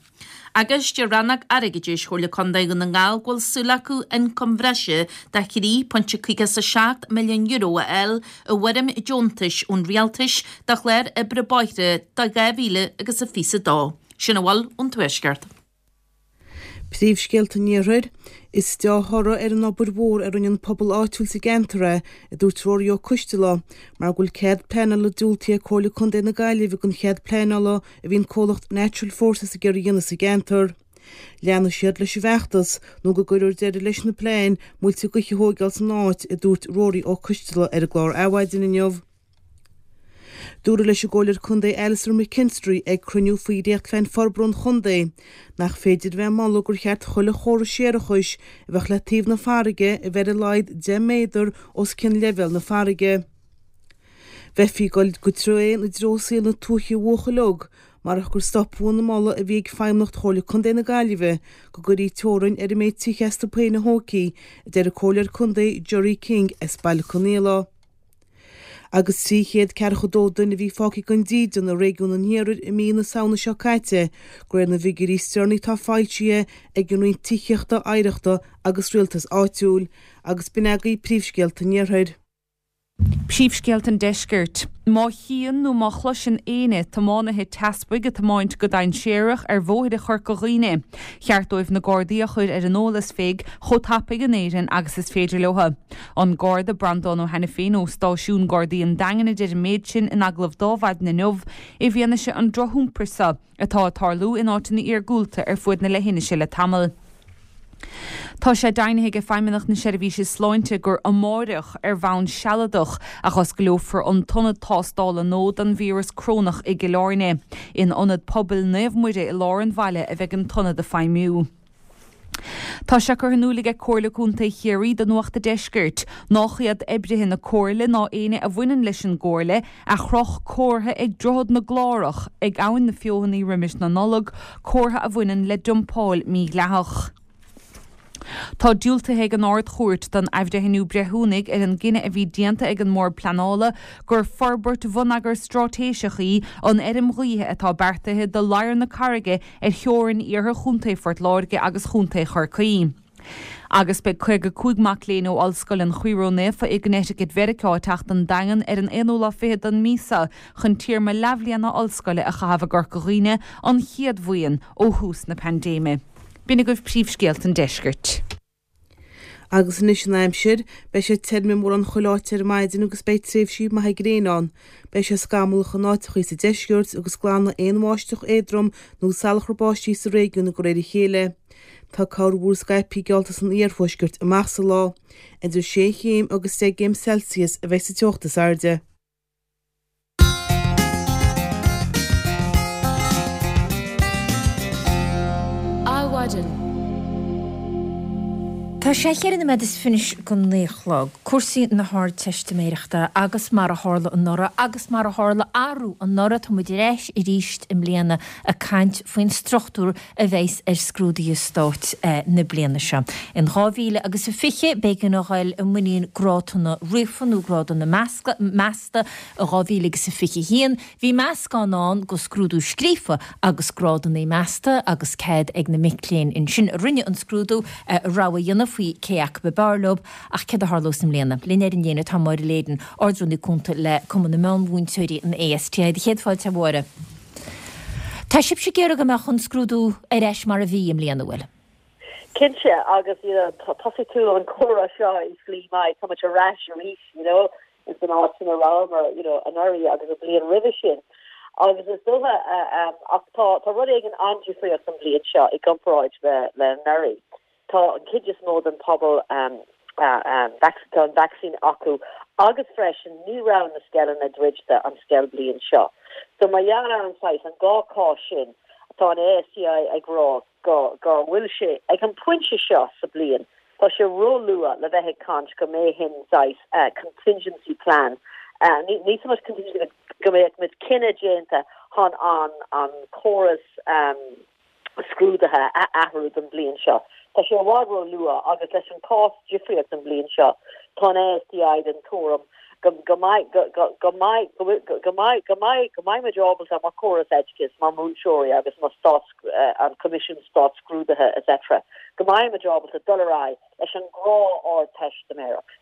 Agus deir Rannóg Airgeadais Chomhairle Contae Dhún na nGall go bhfuil súil acu ioncam bhreise de €3.57 milliún a fháil i bhfoirm deontais ón Rialtais do chlár oibre bóithre do 2022. Sin a bhfuil ón Tuaisceart. Príomhscéalta an Iarthair, Is dea-thoradh ar an obair mhór a rinne an pobal áitiúil sa gceantar é, a dúirt Ruairí Ó Coistealbha, mar go bhfuil cead pleanála diúltaithe ag Comhairle Contae na Gaillimhe don chead pleanála a bhí an comhlacht Natural Forces ag iarraidh a dhéanamh sa gceantar. Leanfaidh siad leis an bhfeachtas nó go gcuirfear deireadh leis na plean muilte gaoithe a thóigeáil san áit, a dúirt Ruairí Ó Coistealbha ar an gclár Adhmhaidin inniu. Dúradh leis an gComhairleoir Contae Alastair McKinstry ag cruinniú faoi dhréachtphlean forbartha an chontae nach féidir a bheith ag moladh gur cheart chuile chóras séarachais a bheadh le taobh na farraige a bheith ar a laghad 10 méadar os cionn leibhéal na farraige. Bheifí ag dul go tréan i dtreo saol na tuaithe a bhuachaill óg marach gur stopadh an moladh a bhí ag Feidhmeannacht Chomhairle Contae na Gaillimhe go gcuirfí teorainn ar an méid tithe astu féin a thógfaí, a deir an Comhairleoir Contae Gerry King as Baile Conaola. Agus 342 duine a bhí fágtha gan dídean i réigiún an Iarthair i mí na Samhna seo caite, de réir na bhfigiúirí is deireanaí atá foilsithe ag an Roinn Tithíochta, Oidhreachta agus Rialtais Áitiúil, agus b'in agaibh príomhscéalta an Iarthair. Príomhscéalta an Deiscirt. Má chíonn nó má chloiseann éinne tiománaithe teaspaigh ag tiomáint go dainséarach ar bhóithre Chorca Dhuibhne, cheart dóibh na Gardaí a chur ar an eolas féig chomh tapaidh in Éirinn agus is féidir leo. An Garda Breandán Ó hAiniféin ó Stáisiún Gardaí an Daingin a deir an méid sin in agallamh d'Adhmhaidin inniu i bhfianaise an drochiompair seo atá ag tarlú in áiteanna iargúlta ar fuaid na leithinise le tamall. Tá sé deimhnithe ag Feidhmeannacht na Seirbhíse Sláinte gur amáireach, ar bhonn sealadach, a dh'osclófar an t-ionad tástála nua don víreas corónach i gCill Airne. In Ionad Pobail Naomh Muire i lár an bhaile a bheidh an t-ionad ag feidhmiú. Tá sé curtha in iúl aige Comhairle Contae Chiarraí do Nuacht a' Deiscirt nách iad oibrithe na Comhairle ná éinne a bhaineann leis an gComhairle a chroch comhartha ag Droichead na gClárach ag Abhainn na Feothanaí roimis na Nollag, comhartha a bhaineann le dumpáil mhídhleathach. Tá diúltaithe ag an Ard-Chúirt don athbhreithniú breithiúnaigh ar an gcinneadh a bhí déanta ag an mBord Pleanála gur forbairt bhonneagair straitéiseach í an fheirm ghaoithe atá beartaithe do Ladhar na Carraige ar theorainn iarthar Chontae Phort Láirge agus Chontae Chorcaí. Agus beidh 55 mac léinn ó Ollscoil an Chroí Ró-Naofa i gConnecticut Mheiriceá ag teacht don Daingean ar an aonú lá fichead den mhí seo chun téarma leathbhliana ollscoile a chaitheamh i gCorca Dhuibhne, an chéad bhuíon ó thús na paindéime. B'in agaibh príomhscéalta an deiscirt. Agus anois an aimsir, beidh sé tirim i mórán chuile áit ar maidin agus beidh tréimhsí maithe gréine ann. Beidh sé scamallach in áiteachaí sa deisceart agus glanfaidh aon bháisteach éadrom nó salachar báistí sa réigiún de réir a chéile. Tá corrmhúr scaipthe geallta san iarthuaisceart amach sa lá. Idir sé chéim agus deich gcéim Celsius a bheidh sa teocht is airde. Adhmhaidin. Tá sé cheithre nóiméad is fiche go naoi a chlog. Cúrsaí na hArdteistiméireachta agus mar a tharla anuraidh agus mar a tharla arú anuraidh tá muid ar ais arís i mbliana ag caint faoin struchtúr a bheas ar scrúduithe stáit na bliana seo. In 2000 agus a 20, b'éigean a ghoil i muinín grádanna ríofa nó grádanna measta. I 2000 agus a 21, bhí meascán ann de scrúdú scríofa agus grádanna measta agus cead ag na mic léinn ansin a rinne an scrúdú rogha a dhéanamh faoi cé acu ab fhearr leo. Ach céard a tharlós i mbliana? Linn ar an líne tá Máire Leyden, Ard-Rúnaí Cúnta le Cumann na Meánmhúinteoirí, an ASTI. Céad fáilte, a Mháire. Tá sibhse ag iarraidh go mbeadh an scrúdú ar ais mar a bhí i mbliana, an bhfuil? Cinnte, agus you know thosaigh tú an comhrá seo i slí maith, tá muid ar ais arís, you know, ins an áit ina rabhamar, you know, anuraidh agus an bhliain roimhe sin. Agus is dócha, ach tá, tá rud éigin an-difríocht an bhliain seo i gcomparáid le, le anuraidh. Tá an chuid is mó den pobal tá an vacsaín acu agus freisin ní raibh na scoileanna druidte an scoilbhliain seo. So mar gheall ar an saghas, an dhá chás sin, tá an ASTI ag rá go go bhfuil sé, ag an pointe seo sa bliain, tá sé ró-luath le bheith ag caint go mbeidh an saghas contingency plan, ní so much contingency go mbeadh muid cinneadh déanta chun an an córas scrúduithe a athrú don bhliain seo. Tá sé i bhfad ró-luath agus leis an cás difríocht an bhliain seo, tá an ASTI den tuairim go go mbeidh go go go mbeidh go go mbeidh go mbeidh go mbeidh muid ábalta mar chóras oideachais, mar múinteoirí agus mar stát an Coimisiún Stát-Scrúduithe etc. go mbeidh muid ábalta dul ar aghaidh leis an ngnáth-Ardteistiméireacht.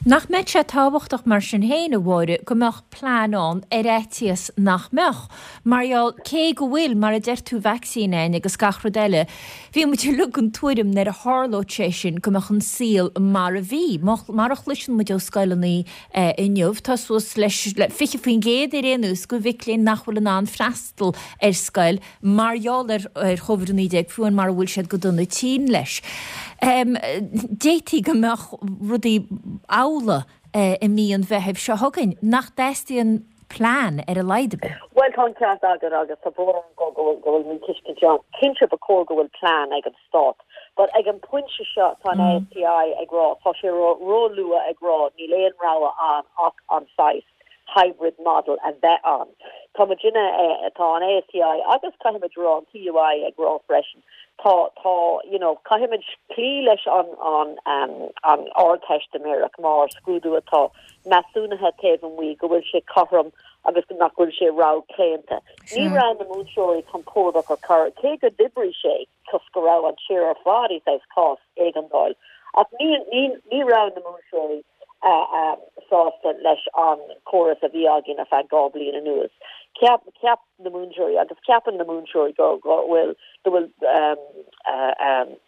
Nach mbeadh sé tábhachtach mar sin féin, a Mháire, go mbeadh plean ann ar fhaitíos nach mbeadh? Mar gheall, cé go bhfuil, mar a deir tú, vacsaín againn agus gach rud eile, bhí muid uilig den tuairim nuair a tharlódh sé sin go mbeadh an saol mar a bhí. Mar a chloiseann muid ó scoileanna inniu, tá suas le 20% ar aon nós de mhic léinn nach bhfuil in ann freastal ar scoil mar gheall ar Covid-19, fiú amháin mara bhfuil siad go dona tinn leis. D'fhéadfaí go mbeadh rudaí amhlaidh i mí an Mheithimh seo chugainn, nach dteastaíonn plean ar a laghad ar bith. Bhuel, tá an ceart agat agus tá brón orm go go bhfuil míthuiscint ann. Cinnte ba chóir go bhfuil plean ag an Stát, but ag an bpointe seo tá an ASTI ag rá, tá sé ró-luath ag rá níl aon rogha ann ach an saghas hybrid model a bheith ann. Tá muidinne, tá an ASTI agus caithfimid rá an TUI ag rá freisin, tá, tá, you know, caithfimid cloí leis an, an, an Ardteistiméireacht mar scrúdú atá measúnaithe taobh amuigh, go bhfuil sé cothrom agus nach bhfuil sé rogh-chlaonta. Ní raibh na múinteoirí compordach ar chor, cé go d'oibrigh sé toisc go raibh an tír ar fad i saghas cás éigeandáil, ach ní, ní, ní raibh na múinteoirí sásta leis an chóras a bhí againn ar feadh 2 bliain anuas. Cheap, cheap na múinteoirí agus ceapann na múinteoirí go, go bhfuil, go bhfuil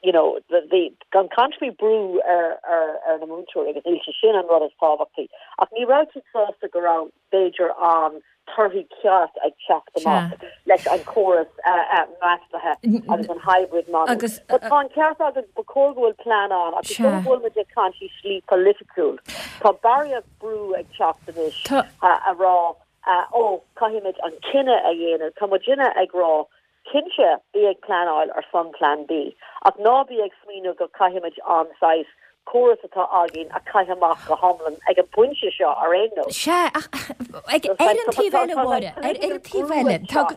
you know, bhí, gan caint faoi brú ar, ar, ar na múinteoirí agus níl sé sin an rud is tábhachtaí ach ní raibh siad sásta go raibh b'fhéidir an torthaí ceart ag teacht amach leis an chóras measúnaithe agus an hybrid model. But tá an ceart agat, ba chóir go bhfuil plean ann ach is dóigh go bhfuil muid ag caint i slí polaitiúil. Tá barraíocht brú ag teacht anois a rá ó caithfimid an cinneadh a dhéanamh. Tá muidinne ag rá Cinnte, bí ag pleanáil ar son Plean B, ach ná bí ag smaoineamh go caithfimid an saghas córas atá againn a chaitheamh amach go hiomlán ag an bpointe seo ar aon nós. Sea, ach ag, ar an taobh eile, Mháire, ar an taobh eile, tá,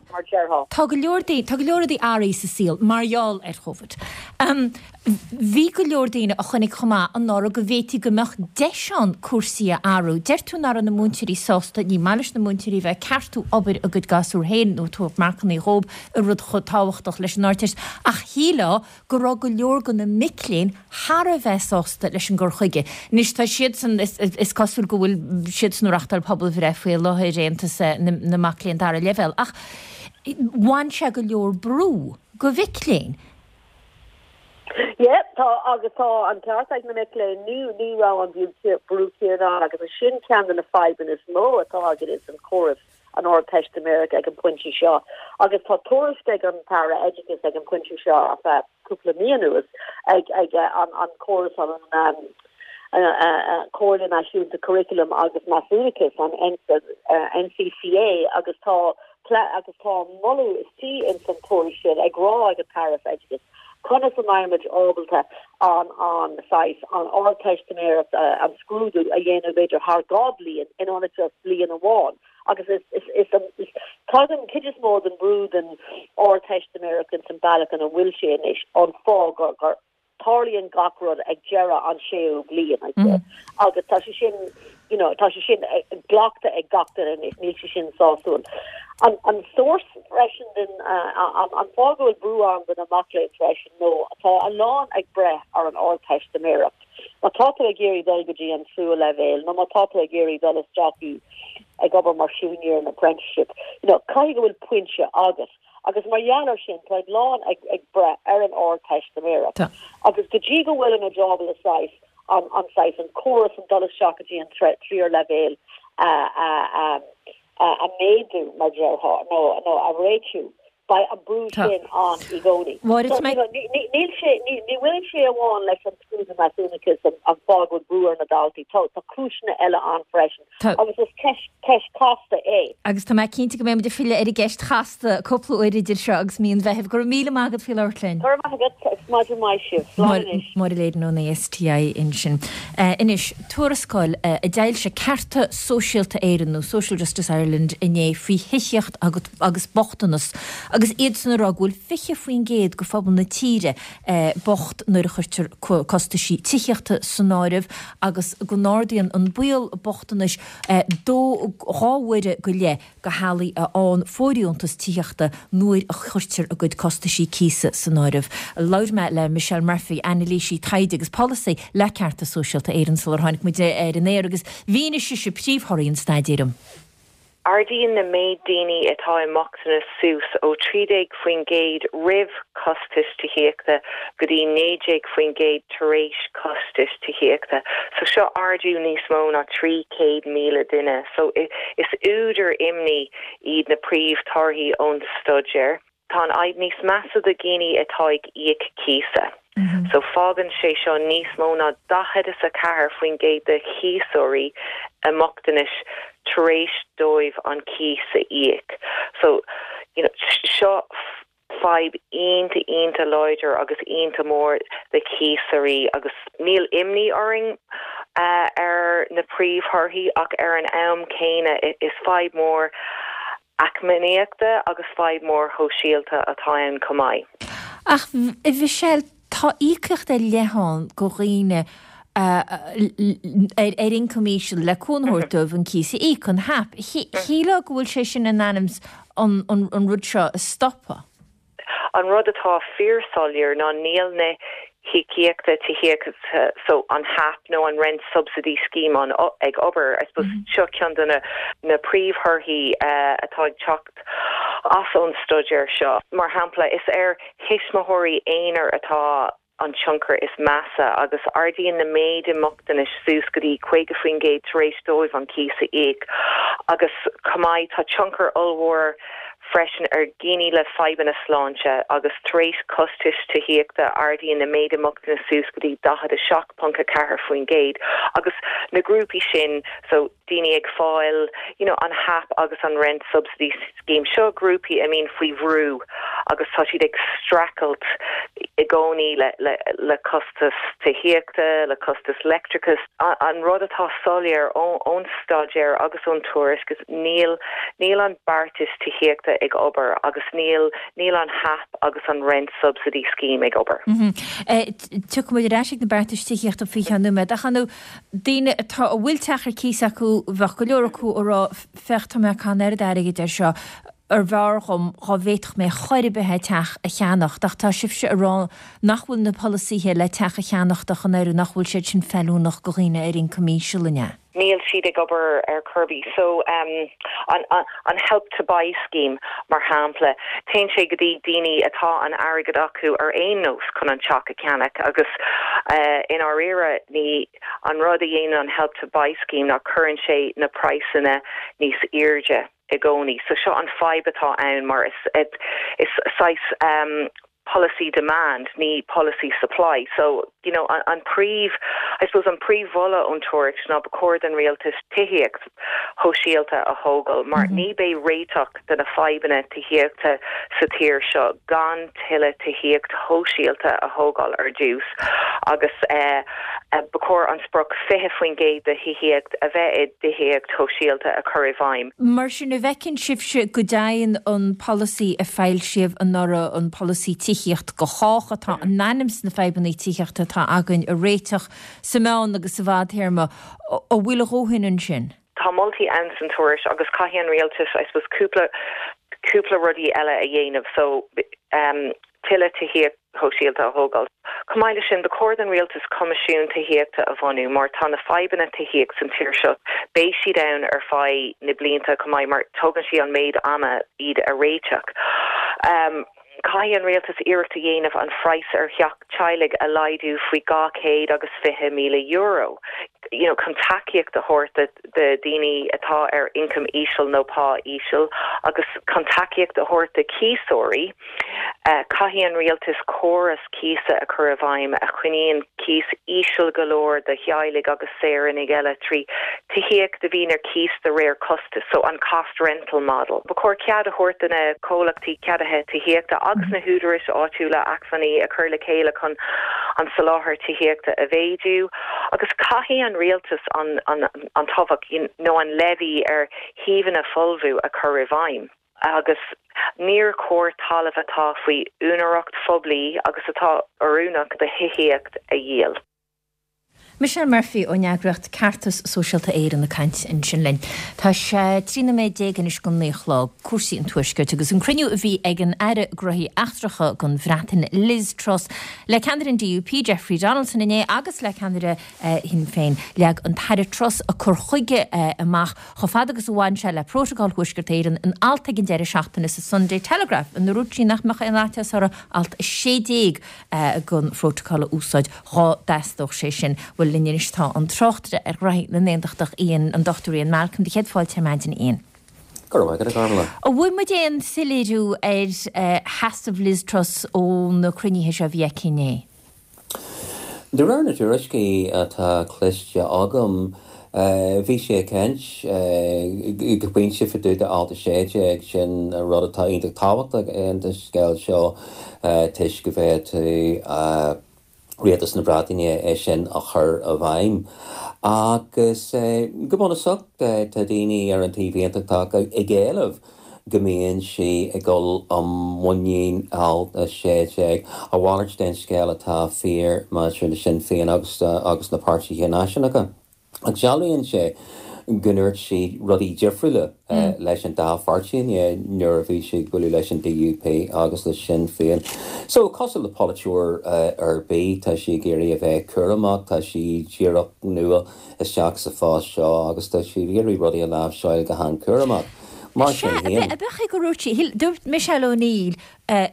tá go leor daoine, tá go leor rudaí athraithe sa saol mar gheall ar Covid. Bhí go leor daoine a chonaic chomh maith anuraidh go bhféadfaí go mbeadh deis ann cúrsaí a athrú. Deir tú nach raibh na múinteoirí sásta, ní maith leis na múinteoirí a bheith ag ceartú obair a gcuid gasúr féin nó ag tabhairt marcanna dhóibh i rud chomh tábhachtach leis an Ardteist ach shílfeá go raibh go leor de na mic léinn thar a bheith sásta leis an gcur chuige. Anois tá siadsan, is cosúil go bhfuil siadsan ag reachtáil pobalbhreith faoi láthair, Aontas na Mac Léinn Dara Leibhéal, ach bhain sé go leor brú go mhic léinn. Yeah, tá, agus tá an ceart ag na mic léinn, ní, ní raibh an brú céanna ann agus is sin ceann de na fadhbanna is mó atá againn ins an chóras an Ardteistiméireacht ag an bpointe seo. Agus tá tuairisc ag an tAire Oideachais ag an bpointe seo ar feadh cúpla mí anuas ag, ag an, an córas an, Comhairle Náisiúnta Curaclaim agus Measúnachais, an NCCA, agus tá agus tá moladh istigh ins an tuairisc sin ag rá ag an tAire Oideachais conas a mbeidh muid ábalta an an saghas an Ardteistiméireacht an scrúdú a dhéanamh b'fhéidir thar 2 bliain in ionad just bliain amháin agus is is is is tagann cuid is mó den brú den Ardteistiméireacht ins an bealach ina bhfuil sé anois an fáth gur gur tarlaíonn gach rud ag deireadh an séú bliain, I'd say. Agus tá sé sin, you know, tá sé sin glactha ag gach duine anois, níl sé sin sásúil. An, an source freisin den, an, an fáth go bhfuil brú ann do na mac léinn freisin nó tá a lán ag breith ar an Ardteistiméireacht. Má tá tú ag iarraidh dul go dtí an tríú leibhéal nó má tá tú ag iarraidh dul isteach i ag obair mar siúinéir in apprenticeship, you know, caithfidh go bhfuil pointe agat. Agus mar gheall air sin, tá a lán ag ag breith ar an Ardteistiméireacht. Agus go dtí go bhfuilimid ábalta saghas an an saghas an córas an dul isteach go dtí an tríú leibhéal a a a a a méadú mar déarfá nó nó a réitiú, beidh an brú sin ann i gcónaí. Mháire, So, you know, ní ní níl sé ní ní bhaineann sé amháin leis an scrúdú measúnachais an an fáth go bhfuil brú ar na daltaí. Tá tá cúiseanna eile ann freisin. Tá. Agus is ceist chasta é. Agus tá mé cinnte go mbeidh muid ag filleadh ar an gceist chasta cúpla uair idir seo agus mí an Mheithimh. Go raibh míle maith agat faoi labhairt linn. Go raibh maith agat agus maidin mhaith sibh. Slán anois. Máire Leyden ón ASTI ansin. Anois, tuarascáil a d'fhoilsigh Cearta Sóisialta Éireann nó Social Justice Ireland inné faoi thithíocht agus bochtanas agus iadsan ag rá go bhfuil 20% de phobal na tíre bocht nuair a chuirtear costaisí tithíochta san áireamh agus go n-ardaíonn an baol bochtanais dó 2 huaire go leith do theaghlaigh a fhaigheann fóirdheontas tithíochta nuair a chuirtear a gcuid costaisí cíosa san áireamh. Labhair mé le Michelle Murphy, anailísí taighde agus polasaí le Cearta Sóisialta Éireann sular tháinig muid ar an aer agus mhínigh sise príomhthorthaí an staidéir dom. Ardaíonn na méid daoine atá i mbochtanas suas ó 13% roimh chostais tithíochta go dtí 19% tar éis costais tithíochta. So seo ardú níos mó ná 300,000 duine. So is údar imní iad na príomhthorthaí ón staidéar. Tá an fhadhb níos measa do dhaoine atá ag íoc cíosa. So fágann sé seo níos mó ná 44% de chíosóirí i mbochtanas tar éis dóibh an cíos a íoc. So, you know, seo fadhb iontach, iontach láidir agus iontach mór do chíosóirí agus níl imní orainn ar na príomhthorthaí ach ar an am céanna is fadhb mór. Eacnamaíochta agus fadhb mhór shóisialta atá ann chomh maith. Ach, a Mhichelle, tá íocaíocht ar leith ann go dhaoine ar ioncam íseal le cúnamh a thabhairt dóibh an cíos a íoc, an HAP. Shílfeá go bhfuil sé sin in ainm 's an rud seo a stopadh. An rud atá fíorshoiléir ná níl na híocaíochta tithíochta so an HAP nó an Rent Subsidy Scheme an ag obair. I suppose seo ceann de na na príomhthorthaí atá ag teacht as ón staidéar seo. Mar shampla, is ar thuismitheoirí aonair atá an tionchar is measa agus ardaíonn na méid i mbochtanais suas go dtí 50% tar éis dóibh an cíos a íoc agus chomh maith tá tionchar ollmhór freisin ar dhaoine le fadhbanna sláinte agus tar éis costais tithíochta ardaíonn na méid i mbochtanas suas go dtí 47.4% agus na grúpaí sin so daoine ag fáil you know an HAP agus an Rent Subsidy Scheme, seo grúpaí a mbíonn faoi bhrú agus tá siad ag streachailt i gcónaí le le le costas tithíochta, le costas leictreachais. An rud atá soiléir ón staidéar agus ón tuairisc is níl níl an beartas tithíochta ag obair agus níl níl an HAP agus an Rent Subsidy Scheme ag obair. Tiocfaidh muid ar ais ag na beartais tithíochta faoi cheann nóiméad ach ar ndóigh daoine atá, a bhfuil teach ar cíos acu, bheadh go leor acu ag rá, féach, tá mé ag caitheamh an oiread airgid air seo, arbh fhearr dhom dhá bhféadfadh mé chor ar bith é teach a cheannacht, ach tá sibhse ag rá nach bhfuil na polasaithe le teach a cheannacht ach an oiread, nach bhfuil siad sin feiliúnach go dhaoine ar ioncam íseal, an ea? Níl siad ag obair ar chor ar bith. So, an, an Help to Buy scheme, mar shampla, téann sé go dtí daoine atá an airgead acu ar aon nós chun an teach a cheannach agus i ndáiríre ní, an rud a dhéanann an Help to Buy scheme ná cuireann sé na praghsanna níos airde i gcónaí. So seo an fadhb atá ann mar is, is saghas polasaí demand, ní polasaí supply. So, you know, an príomh, I suppose an príomh-mholadh ón tuairisc ná ba chóir don rialtas tithíocht shóisialta a thógáil mar ní beidh réiteach do na fadhbanna tithíochta sa tír seo gan tuilleadh tithíocht shóisialta a thógáil ar dtús agus ba chóir an sprioc 20% de thithíocht a bheith i dtithíocht shóisialta a chur i bhfeidhm. Mar sin, an bhfeiceann sibhse go dtéann an polasaí a foilsíodh anuraidh, an polasaí Tithíocht do Chách, atá in ainm 's na fadhbanna tithíochta atá againn a réiteach sa meán agus sa bhfadtéarma, an bhfuil a dhóthain ansin? Tá moltaí ann san tuairisc agus caithfidh an rialtas, I suppose, cúpla, cúpla rudaí eile a dhéanamh. So, tuilleadh tithíocht shóisialta a thógáil. Chomh maith leis sin, ba chóir don rialtas coimisiún tithíochta a bhunú mar tá na fadhbanna tithíocht san tír seo, beidh siad ann ar feadh na blianta chomh maith mar tógann sé an méid ama iad a réiteach. Caithfidh an rialtas iarracht a dhéanamh an phraghas ar theach teaghlaigh a laghdú faoi €220,000 you know chun tacaíocht a thabhairt do daoine atá ar ioncam íseal nó pá íseal agus chun tacaíocht a thabhairt do chíosóirí. Caithfidh an rialtas córas cíosa a chur i bhfeidhm a choinníonn cíos íseal go leor do theaghlaigh agus saoránaigh eile trí tithíocht a bhíonn ar cíos de réir costais, so an cost rental model. Ba chóir cead a thabhairt do na comhlachtaí ceadaithe tithíochta agus na húdaráis áitiúla acmhainní a chur le chéile chun an soláthar tithíochta a mhéadú agus caithfidh an rialtas an an tobhach nó an levy ar shuíomhanna folmha a chur i bhfeidhm. Agus níor chóir talamh atá faoi úinéireacht phoiblí agus atá oiriúnach do thithíocht a dhíol. Michelle Murphy ón eagraíocht Ceartas Sóisialta Éireann ag caint ansin linn. Tá sé 13 nóiméad anois go 9 a chlog. Cúrsaí an Tuaiscirt agus an cruinniú a bhí ag an Aire Gnóthaí Eachtracha don Bhreatain, Liz Truss, le ceannaire an DUP, Jeffrey Donaldson inné agus le ceannaire Shinn Féin. Leag an tAire Truss a cur chuige amach chomh fada agus a bhain sé le Prótacal Thuaisceart Éireann in alt ag an deireadh seachtaine sa Sunday Telegraph ina ndúirt sí nach mbeadh aon fhaitíos uirthi alt 16 den Phrótacal a úsáid dhá dteastódh sé sin. Bhuel, linn anois tá an tráchtaire ar ghraithí na nAontachtach, Ian, an Dr Ian Malcolm. Do chéad fáilte ar maidin, Ian. Go raibh maith agat, a Ghormfhlaith. An bhfuair muid aon soiléiriú ar sheasamh Liz Truss ó na cruinnithe seo a bhí aici inné? De réir na dtuairiscí atá cloiste agam, bhí sí ag caint go pointe fá dtaobh de Alt 16, sin rud atá iontach tábhachtach in sa scéal seo toisc go bhféadfadh Rialtas na Breataine é sin a chur i bhfeidhm. Agus go bunúsach tá daoine ar an taobh aontachtach ag éileamh. go mbíonn sí ag dul i muinín Alt 16. A mhalairt den scéal atá fíor maidir le Sinn Féin agus agus na páirtithe náisiúnacha. Ach dealraíonn sé go ndúirt sí rudaí difriúla leis an dá pháirtí inné nuair a bhí sí ag bualadh leis an DUP agus le Sinn Féin. So, cosúil le polaiteoir ar bith, tá sí ag iarraidh a bheith cúramach, tá sí díreach nua isteach sa phost seo agus tá sí ag iarraidh rudaí a láimhseáil go han-chúramach. Mar sin féin. Sea, ab é gur dhúirt sí, dúirt Michelle O'Neill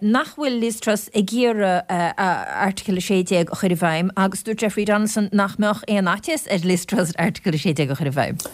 nach bhfuil Liz Truss ag iarraidh Article 16 a chur i bhfeidhm agus dúirt Jeffrey Donaldson nach mbeadh aon fhaitíos ar Liz Truss Article 16 a chur i bhfeidhm.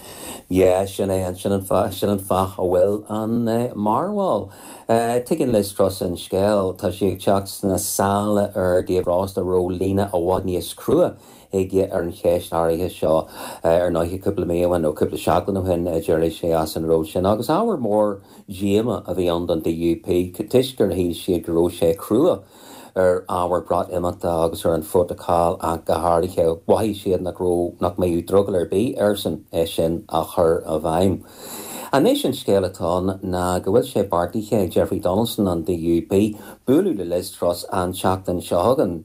Yeah, sin é, sin an fáth, sin an fáth a bhfuil an mearbhall. Tuigeann Liz Truss an scéal, tá sí ag teacht sna sála ar Dave Frost a raibh líne i bhfad níos crua aige ar an cheist áirithe seo. Ar ndóighe, cúpla mí ó shin, nó cúpla seachtain ó shin, d'éirigh sé as an ról sin agus ábhar mór díomá a bhí ann don DUP toisc gur shíl siad go raibh sé crua ar ábhar Breatimeachta agus ar an phrótacal ach go háirithe. Mhothaigh siad nach raibh, nach mbeadh drogall ar bith airsean é sin a chur i bhfeidhm. Anois an scéal atá ann ná go bhfuil sé beartaithe ag Jeffrey Donaldson an DUP bualadh le Liz Truss an tseachtain seo chugainn.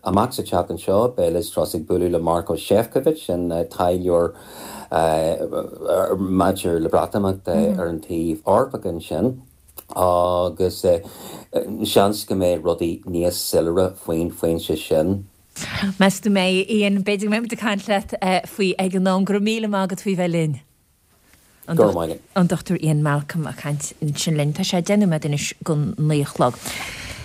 Amach sa tseachtain seo beidh Liz Truss ag bualadh le Maroš Šefčovič, an taidhleoir maidir le Breatimeacht ar an taobh Eorpach ansin agus seans go mbeidh rudaí níos soiléire faoin phointe sin. Meas tú an mbeidh, Ian? B'fhéidir go mbeidh muid ag caint leat faoi ag an am. Go raibh míle maith agat faoi bheith linn. Go raibh maith agat. An Dr Ian Malcolm ag caint ansin linn. Tá sé 10 nóiméad anois go 9 a chlog.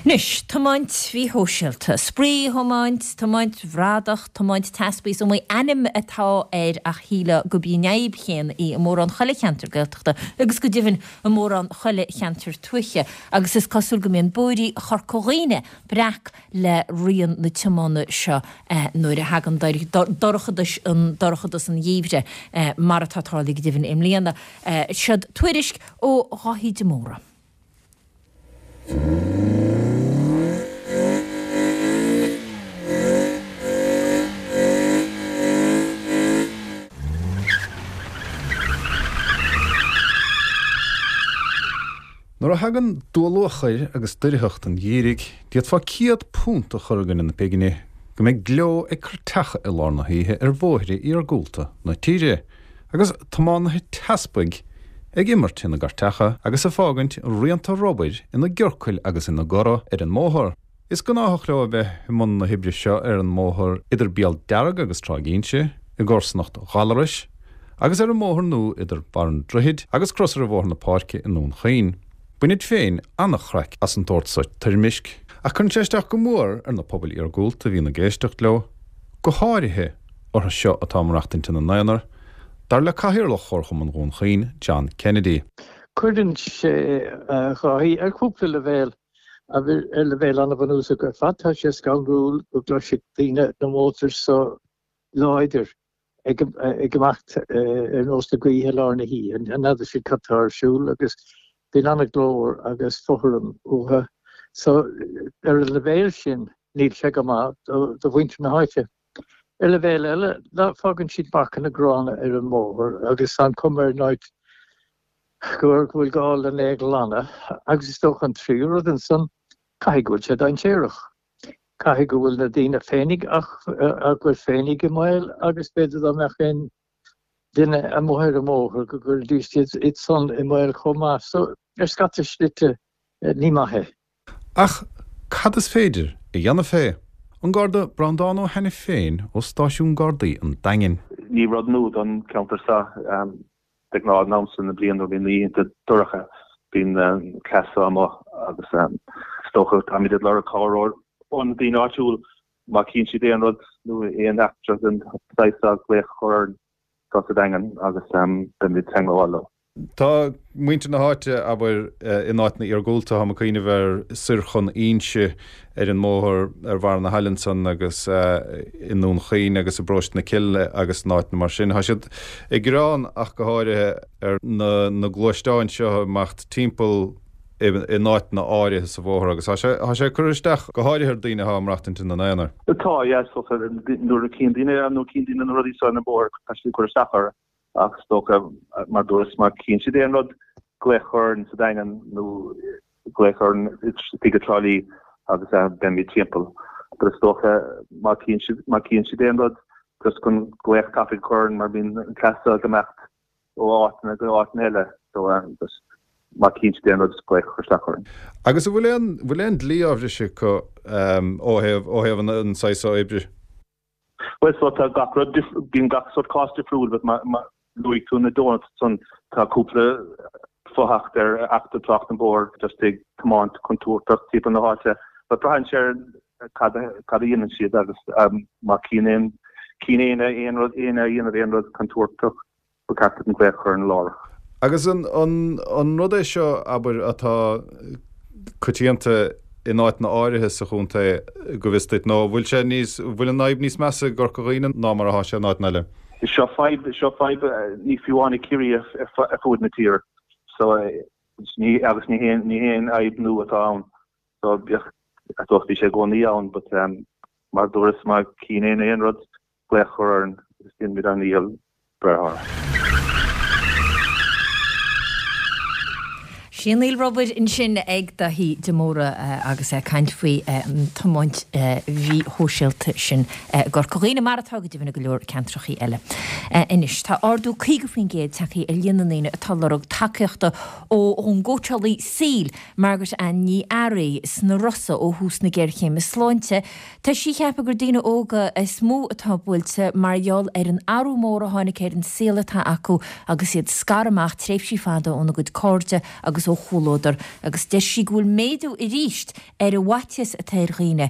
Anois, tiomáint mhíshóisialta, spraoi-thiomáint, tiomáint bhradach, tiomáint teaspaí, is iomaí ainm atá air ach shílfeá gurb í an fhadhb chéanna í i mórán chuile cheantar Gaeltachta agus go deimhin i mórán chuile cheantar tuaithe agus is cosúil go mbíonn bóithrí Chorca Dhuibhne breac le rian na tiomána seo nuair a thagann dorchadas an dorchadas an gheimhridh, mar atá tarlaithe go deimhin i mbliana. Seod tuairisc ó Dháithí de Mórdha. Nuair a thagann dúluachair agus doircheacht an gheimhridh, d'fhéadfá £100 a chur i gcoinne na pingne go mbeidh gleo ag cairteacha i lár na hoíche ar bhóithre iargúlta na tíre, agus tiománaithe teaspaigh ag imirt ina gcairteacha agus ag fágaint rianta rubair ina gciorcail agus ina gcora ar an mbóthar. Is gnáthach leo a bheith i mbun na hoibre seo ar an mbóthar idir Béal Dearg agus Tráigh Inse, i gcomharsanacht Ghallarais, agus ar an mbóthar nua idir Barr an Droichid agus Crosaire Bhóthar na Páirce i nDún Chaoin. Bainid féin an-chraic as an tsórt so toirmisc, ach cuireann sé isteach go mór ar na pobail iargúlta a bhíonn ag éisteacht leo, go háirithe orthu seo atá ag maireachtaint ina n-aonar, dar le Cathaoirleach Chomharchumann Dhún Chaoin, John Kennedy. Cuireann sé, a Dháithí, ar chúpla leibhéal. Ar leibhéal an-bhunúsach ar fad, tá sé scanrúil go gcloisfidh daoine na mótair so láidir ag imeacht ar nós na gaoithe i lár na hoíche. N'fheadar siad cad tá ar siúl agus bíonn an-ghlór agus fothram uathu. So, ar an leibhéal sin, níl sé go maith do mhuintir na háite. Ar leibhéal eile, fágann siad marcanna gránna ar an mbóthar agus tá an chuma ar an áit go bhfuil gá lena é a ghlanadh agus is dócha an tríú rud ansan, caithfidh go bhfuil sé dainséarach. Caithfidh go bhfuil na daoine féinig ach go bhfuil féinig i mbaol agus b'fhéidir dá mbeadh aon duine amuigh ar an mbóthar go gcuirfidís iad san i mbaol chomh maith. So, ar scata slite, ní maith é. Ach cad is féidir a dhéanamh fé? An Garda Breandán Ó hAiniféin ó Stáisiún Gardaí an Daingin. Ní rud nua don cheantar seo. De ghnáth an am seo na bliana nuair a bhíonn na oícheanta dorcha bíonn an cleas seo amuigh agus is dócha táimid ag lorg cabhair ó na daoine áitiúil má chíonn siad aon rud nó aon eachtra den saghas seo glaoch a chur orainn anseo sa Daingean agus beimid ag teagmháil leo. Tá muintir na háite, abair, in áiteanna iargúlta, táim ag cuimhneamh ar soir chun Inse ar an mbóthar ar bharr na haille ansan agus i nDún Chaoin agus i bParóiste na Cille agus in áiteanna mar sin. Tá siad ag gearán ach go háirithe ar na gluaisteáin seo ag imeacht timpeall in áiteanna áirithe sa bhóthar agus tá sé, tá sé ag cur isteach go háirithe ar daoine atá ag maireachtaint ina n-aonar. Tá, yeah, is dócha nuair a chíonn daoine, nuair a chíonn daoine na rudaí seo ar an mbóthar tá siad ag cur isteach orthu. Ach is dócha, mar dúras, má chíonn siad aon rud. Glaoch a chur orainn sa Daingean nó glaoch orainn istigh i dTrá Lí agus beimid timpeall. But is dócha má chíonn siad má chíonn siad aon rud just chun glaoch tapaidh a chur orainn mar bíonn an cleas seo ag imeacht ó áiteanna go áiteanna eile so just má chíonn siad aon rud just glaoch a chur isteach orainn. Agus an bhfuil aon bhfuil aon dlí á bhriseadh acu ó thaobh ó thaobh an saghas seo oibre? Bhuel so tá gach rud bíonn gach sórt cás difriúil but má luaigh tú na donuts ansan tá cúpla fo-acht ar Acht Tráchta an Bhóthair just ag tiomáint contúirteach timpeall na háite but braitheann sé ar cad cad a dhéanann siad agus má chíonn aon chíonn éinne aon rud éinne a dhéanamh aon rud contúirteach Ba cheart dúinn glaoch a chur orainn láithreach. Agus an rud é seo, abair, atá coitianta in áiteanna áirithe sa chontae, go bhfios duit, nó an bhfuil sé níos, an bhfuil an fhadhb níos measa i gCorca Dhuibhne ná mar atá sé in áiteanna eile? Seo fadhb, seo fadhb ní fiú amháin i Ciarraí ar fuaid na tíre. So, ní, agus ní haon, ní haon fhadhb nua atá ann. So, bíodh, I suppose bhí sé i gcónaí ann, but mar a dúras, má chíonn éinne aon rud, glaoch a chur orainn agus déanfaimid ár ndícheall breith orthu. Sianaíl rubair ansin ag Daithí de Mórdha agus é ag caint faoi an tiomáint mhíshóisialta sin i gCorca Dhuibhne, mar atá go deimhin i go leor ceantrachaí eile. Anois, tá ardú 50% tagtha ar líon na ndaoine atá ag lorg tacaíochta ón gcóitseálaí saoil, Margaret Ann Ní Fhearraigh, sna Rosa ó thús na géarchéime sláinte. Tá sí ag ceapadh gur daoine óga is mó atá buailte mar gheall ar an athrú mór a tháinig ar an saol atá acu agus iad scartha amach tréimhsí fada óna gcuid cairde agus ó chomhluadar agus deir sí go bhfuil méadú arís ar an bhfaitíos atá ar dhaoine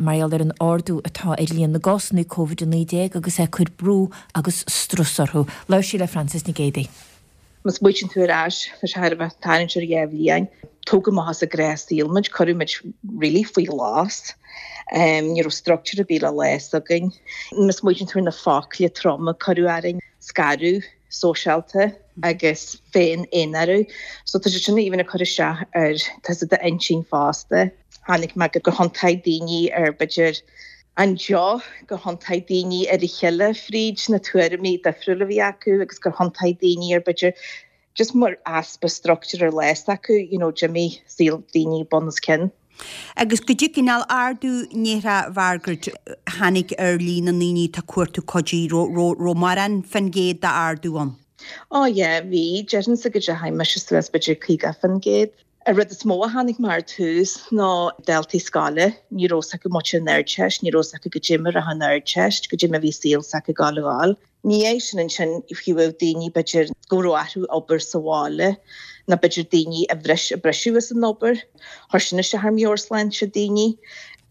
mar gheall ar an ardú atá ar líon na gcásanna Covid-19 agus é ag cur brú agus strus orthu. Labhair sí le Frances Nic Géadaigh. Má smaoitíonn tú ar ais, tá sé thar a bheith tarraingt ar dheich bhliain. Tógadh amach as an ngnáthshaol muid, cuireadh muid really faoi ghlas. Ní raibh structure ar bith le lá s'againn. Má smaoitíonn tú ar na focla troma a cuireadh orainn, scaradh sóisialta agus féin-aonarú. So tá sé sin even ag cur isteach ar tusa d'intinn fosta. Chonaic mé gur thiontaigh daoine ar b'fhéidir an deoch, gur thiontaigh daoine ar a chéile fríd na tuairimí difriúla a bhí acu agus gur thiontaigh daoine ar b'fhéidir just mar easpa structure ar lá s'acu, you know, d'imigh saol daoine bun os cionn. Agus goidé cineál ardú ndéarfá a Mhargaret tháinig ar líon na ndaoine atá ag cuartú cuidí, raibh mórán fén gcéad d'ardú ann? Ó yeah, bhí, déarfainnse go dteachaigh mise suas b'fhéidir 50%. An rud is mó a chonaic mé ar tús ná daltaí scoile, ní raibh 's acu muid an Ardteist, ní raibh 's acu goidé mar a raibh an Ardteist, goidé mar a bhí saol s'acu ag gabháil a dhul. Ina dhiaidh sin ansin fiú daoine b'fhéidir go raibh orthu obair sa bhaile nó b'fhéidir daoine a bhris, a briseadh as an obair, chuir sin isteach ar mheabhairshláinte daoine.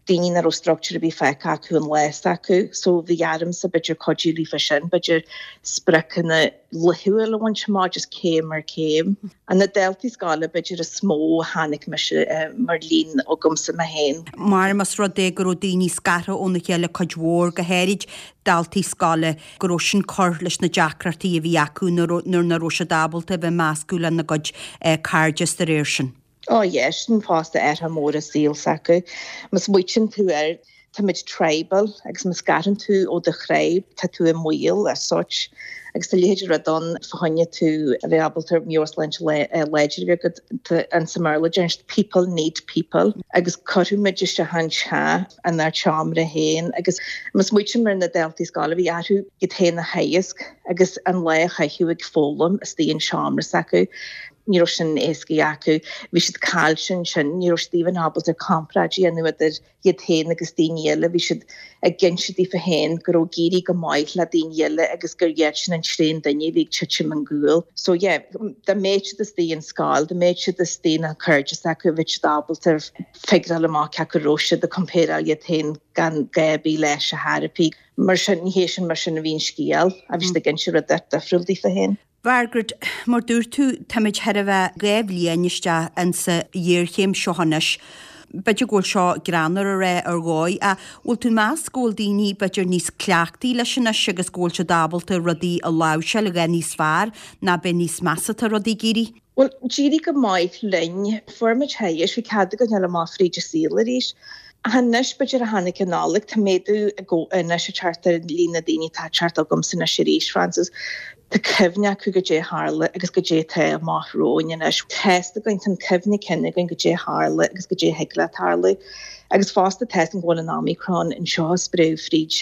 daoine nach raibh structure ar bith fágtha acu an lá s'acu so bhí ormsa b'fhéidir cuidiú leofa sin, b'fhéidir spriocanna laethúil a bhaint amach just céim ar chéim. An na daltaí scoile b'fhéidir is mó a chonaic mise mar líon agamsa mé féin. Mar más rud é go raibh daoine scartha óna chéile cuid mhór, go háirid daltaí scoile, go raibh sin cur leis na deacrachtaí a bhí acu nuair nach raibh siad ábalta a bheith meascadh lena gcuid cairde is de réir sin. Ó yeah, sin fosta athrú mór i saol s'acu. Má smaoitíonn tú air, táimid tribal agus má scarann tú ó do thribe, tá tú i mbaol as such. Agus tá a leithéid de rud ann fá choinne tú a bheith ábalta meabhairshláinte láidir a bheith agat, tá insa mBéarla deireann siad people need people agus cuireadh muid isteach an teach inár tseomra féin agus má smaoitíonn ar na daltaí scoile bhí orthu iad féin a theagasc agus an lá a chaitheamh ag foghlaim istigh in seomra s'acu. Ní raibh sin éasca acu. Bhí siad caillte ansin. Ní raibh siad even ábalta comparáid a dhéanamh idir iad féin agus daoine eile. Bhí siad ag inse daofa féin go raibh ag éirí go maith le daoine eile agus gur iadsan an tréan duine a bhí ag titim ón gcúl. So yeah, dá mbeadh siad istigh in scoil, dá mbeadh siad istigh na cairde s'acu, bheadh siad ábalta figureáil amach cé acu raibh siad ag compareáil iad féin gan gá ar bith leis a therapy. Mar sin, ní hé sin mar sin a bhí an scéal. Bhí siad ag inse rud difriúil daofa féin. Mhargaret, mar dúirt tú, táimid chóir a bheith 2 bhliain isteach insa ghéarchéim seo anois. B'fhéidir go bhfuil seo greannmhar a rá ar dhóigh, ach bhfuil tú ag meas go bhfuil daoine b'fhéidir níos cleachtaí leis anois agus go bhfuil siad ábalta rudaí a láimhseáil a dhath níos fearr ná beidh níos measa atá rudaí ag éirí? Bhuel, d'éirigh go maith linn. Fuair muid theaghais, bhí cead againn dul amach fríd an saol arís. Ach anois, b'fhéidir ó tháinig an Nollaig, tá méadú anois ag teacht ar líon na daoine atá ag teacht chugamsa anois arís, Frances. Tá cuimhne acu goidé a tharla agus goidé atá amach romhainn anois. Tá fhios againn, tá an cuimhne cinn againn goidé a tharla agus goidé a thig le tarlú. Agus fosta tá fhios againn go bhfuil an Omicron anseo ag spréadh fríd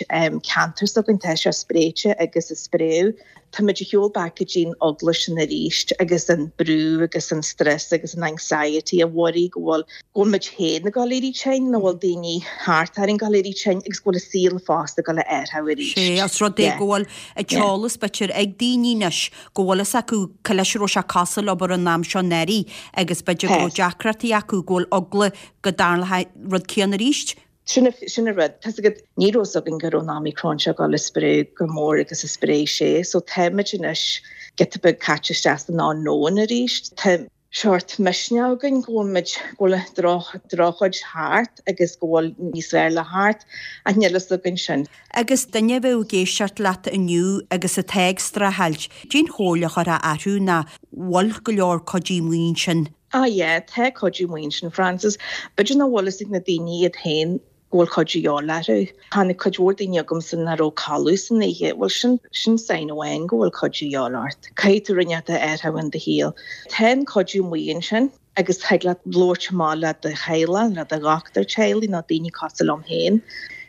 ceantar s'againn, tá sé spréite agus ag spréadh. Táimid ag shiúl back go dtí'n eagla sin arís agus an brú agus an stress agus an anxiety a worry go bhfuil, go bhfuil muid féin ag dul éirí tinn nó bhfuil daoine thart orainn ag dul éirí tinn agus go bhfuil an saol fosta ag dul a athrú arís. Sé, os rud é go bhfuil an t-eolas b'fhéidir ag daoine anois go bhfuil fhios acu cá leis a raibh sé cosúil abair an am seo anuraidh agus b'fhéidir go raibh deacrachtaí acu go bhfuil eagla go dtarlódh an rud céanna arís. Sin sin an rud. Tá's agat, ní raibh fhios againn go raibh an Omicron seo ag dul a spréadh chomh mór agus a spréigh sé. So táimid anois giota beag caite isteach san unknown arís. Tá seort misneach againn go bhfuil muid, go bhfuil an droch, drochchuid thart agus go bhfuil níos fearr le theacht ach níl fhios againn sin. Agus duine a bheadh ag éisteacht leat inniu agus atá ag streachailt, cén chomhairle a chuirfeá orthu nó bhfuil go leor cuidiú amuigh ansin? Ah yeah, tá cuidiú amuigh ansin, Frances. B'fhéidir nach bhfuil fhios ag na daoine iad féin go bhfuil cuidiú de dhíobháil orthu. Tháinig cuid mhór daoine chugamsa nach raibh codladh san oíche. Bhuel, sin, sin sign amháin go bhfuil cuidiú de dhíobháil ort. Caithfidh tú rud inteacht a athrú in do shaol. Tá an cuidiú amuigh ansin agus thig leat labhairt amach le do theaghlach, le do dhochtúir teaghlaigh nó daoine cosúil liom féin.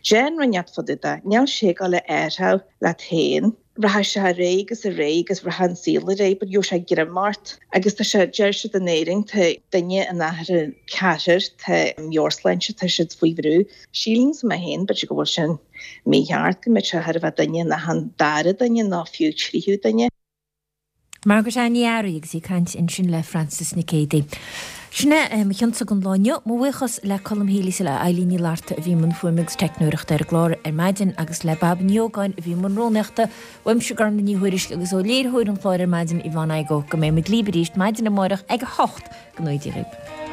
Déan rud inteacht fá dtaobh de. Níl sé ag dul a athrú leat féin. Rachaidh sé ar aghaidh agus ar aghaidh agus rachaidh an saol ar aghaidh but gheobhaidh sé greim ort agus tá sé, deir siad in Éirinn, tá duine in achan ceathrar, tá meabhairshláinte, tá siad faoi bhrú. Sílimse mé féin, b'fhéidir go bhfuil sin mícheart, go mbeadh sé chóir a bheith duine in achan dara duine nó fiú tríú duine. Margaret Anne Ní Fhearraigh agus í ag caint ansin le Frances Nic Géadaigh. Sin é mo chionsa don lá inniu. Mo bhuíochas le Colm Healy is le Eilín Ní Fhlatharta a bhí i mbun fuaime agus teicneoireachta ar an gclár ar maidin agus le Bab Ní Ógáin a bhí i mbun rúnaíochta. Uaimse Gormlaith Ní Thuairisg agus ó léiritheoir an chláir ar maidin Yvonne Igoe go mbeidh muid libh arís maidin amárach ag 8 Go ngnóthaí Dia dhaoibh.